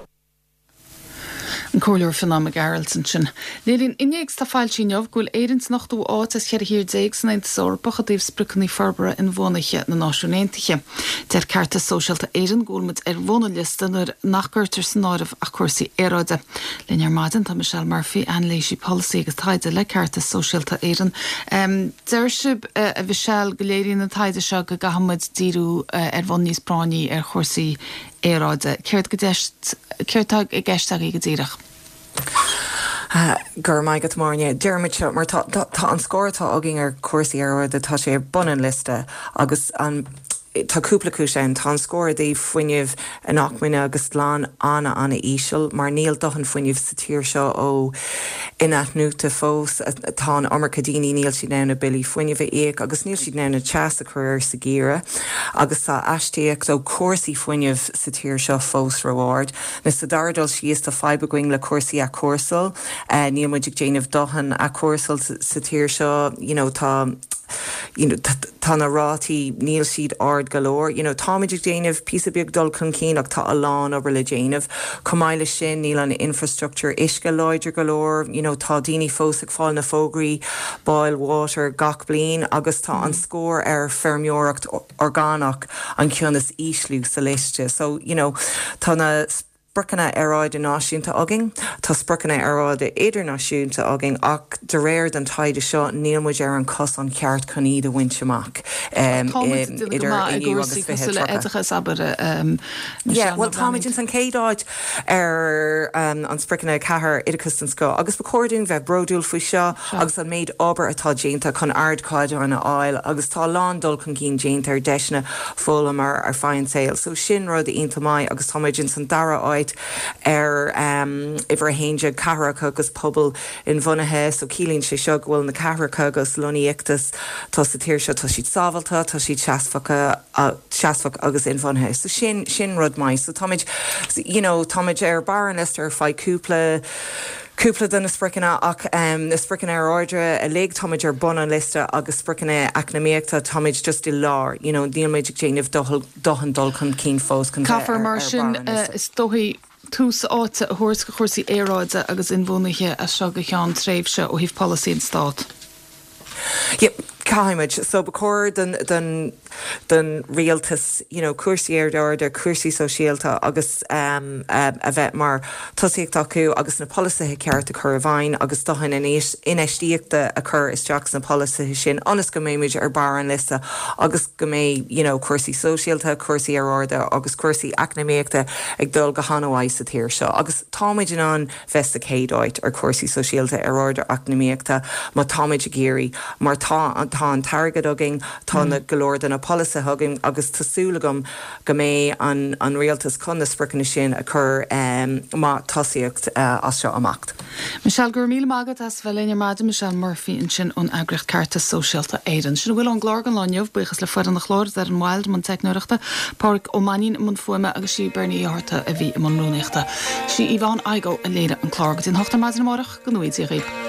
An Comhairleoir Fionán Mac Gearailt ansin. Léiríonn innéacs atá foilsithe inniu go bhfuil Éirinn san ochtú áit as cheithre thír déag san Aontas Eorpach i dtaobh spriocanna forbartha inbhuanaithe na Náisiún Aontaithe. Deir Ceartas Sóisialta Éireann go bhfuil muid ar bhun an liosta nuair nach gcuirtear san áireamh ach cúrsaí aeráide. Linn ar maidin tá Michelle Murphy, anailísí polasaí agus taighde le Ceartas Sóisialta Éireann. Deir sibh, a Mhichelle, go léiríonn an taighde seo go gcaithfidh muid díriú ar bhonn níos práinní ar chúrsaí aeráide. Céard go céard tá i gceist agaibh go díreach? Go raibh maith agat, Máire. Deirimid seo mar tá tá an scór atá againn ar chúrsaí aeráide, tá sé ar bun an liosta agus an tá cúpla cúis ann. Tá an scór i dtaobh fuinneamh inacmhainne agus glan an-an-íseal mar níl dóthain fuinnimh sa tír seo ó inathnuaite fós. Tá an iomarca daoine, níl siad in ann a billí fuinnimh a íoc agus níl siad in ann an teas a chur air sa gheimhreadh agus tá astaíocht ó chúrsaí fuinnimh sa tír seo fós ró-ard. Nó sa dara dul síos tá fadhb againn le cúrsaí athchúrsáil. Níl muid ag déanamh dóthain athchúrsáil sa tír seo. You know tá you know tá na rátaí, níl siad ard go leor. You know táimid ag déanamh píosa beag dul chun cinn ach tá a lán obair le déanamh. Chomh maith leis sin níl an infrastructure uisce láidir go leor. You know tá daoine fós ag fáil na fógraí boil water gach bliain agus tá an scór ar feirmeoireacht orgánach an ceann is ísliú sa liosta. So you know tá na. spriocanna aeráide náisiúnta againn, tá spriocanna aeráide idirnáisiúnta againn ach de réir den taighde seo níl muid ar an cosán ceart chun iad a bhaint amach Tá muid ag déanamh go idir maith i inniu agus gcúrsaí cosúil le 2030. oideachas, abair, Yeah, Michelle, bhuel nó táimid breathnaíonn. ins an chéad áit ar an spriocanna 4, oideachas den scoth, agus ba chóir dúinn bheith bródúil faoi seo agus an méid obair atá déanta chun ardchaighdeáin a fháil agus tá a lán dul chun cinn déanta ar deiseanna foghlama ar feadh an tsaoil. So sin rud iontach maith agus tá muid ins an dara áit ar uimhir 11, cathracha agus pobail inbhuanaithe. So ciallaíonn sé seo go bhfuil na cathracha agus lonnaíochtaí atá sa tír seo, tá siad sábháilte, tá siad seasmhacha, seasmhach agus inbhuanaithe. So sin, sin rud maith. So táimid, you know, táimid ar barr an liosta ar feadh cúpla, cúpla de na spriocanna ach na spriocanna aeráide uilig, táimid ar bun an liosta agus spriocanna eacnamaíochta, táimid just i lár, you know, níl muid ag déanamh dóthain dul chun cinn fós chun bheith Caithfear ar mar barr sin, an liosta. is dóigh, tús áite a thabhairt do chúrsaí aeráide agus inbhuanaithe as seo go ceann tréimhse ó thaobh polasaí an Stát. Yeah, caithfimid. So ba chóir don, don, don rialtas, you know, cúrsaí aeráide, cúrsaí sóisialta agus um, a bheith mar tosaíocht acu agus na polasaithe ceart a chur i bhfeidhm agus dóthain infheistíochta a chur isteach sna polasaithe sin ionas go mbeimid ar barr an liosta agus go mbeidh, you know, cúrsaí sóisialta, cúrsaí aeráide agus cúrsaí eacnamaíochta ag dul go han-mhaith sa tír seo agus táimid in ann bheith sa chéad áit ar chúrsaí sóisialta, aeráide, eacnamaíochta má táimid ag iarraidh mar tá tá an t-airgead againn, tá na go leor de na polasaithe againn agus tá súil agam go mbeidh an an rialtas chun na spriocanna sin a chur mar tosaíocht as seo amach. Michelle, Go raibh míle maith agat as bheith linn ar maidin. Michelle Murphy ansin ón eagraíocht Ceartas Sóisialta Éireann. Sin a bhfuil ón gclár don lá inniu. Buíochas le foireann an chláir, Doireann Wilde i mbun teicneoireachta, Pádraig Ó Mainnín i mbun fuaime agus sí Bernie Uí Fhátharta a bhí i mbun rúnaíochta. Sí Yvonne Igoe a léirigh an clár. Go dtí an hocht ar maidin amárach, go ngnóthaí Dia dhaoibh.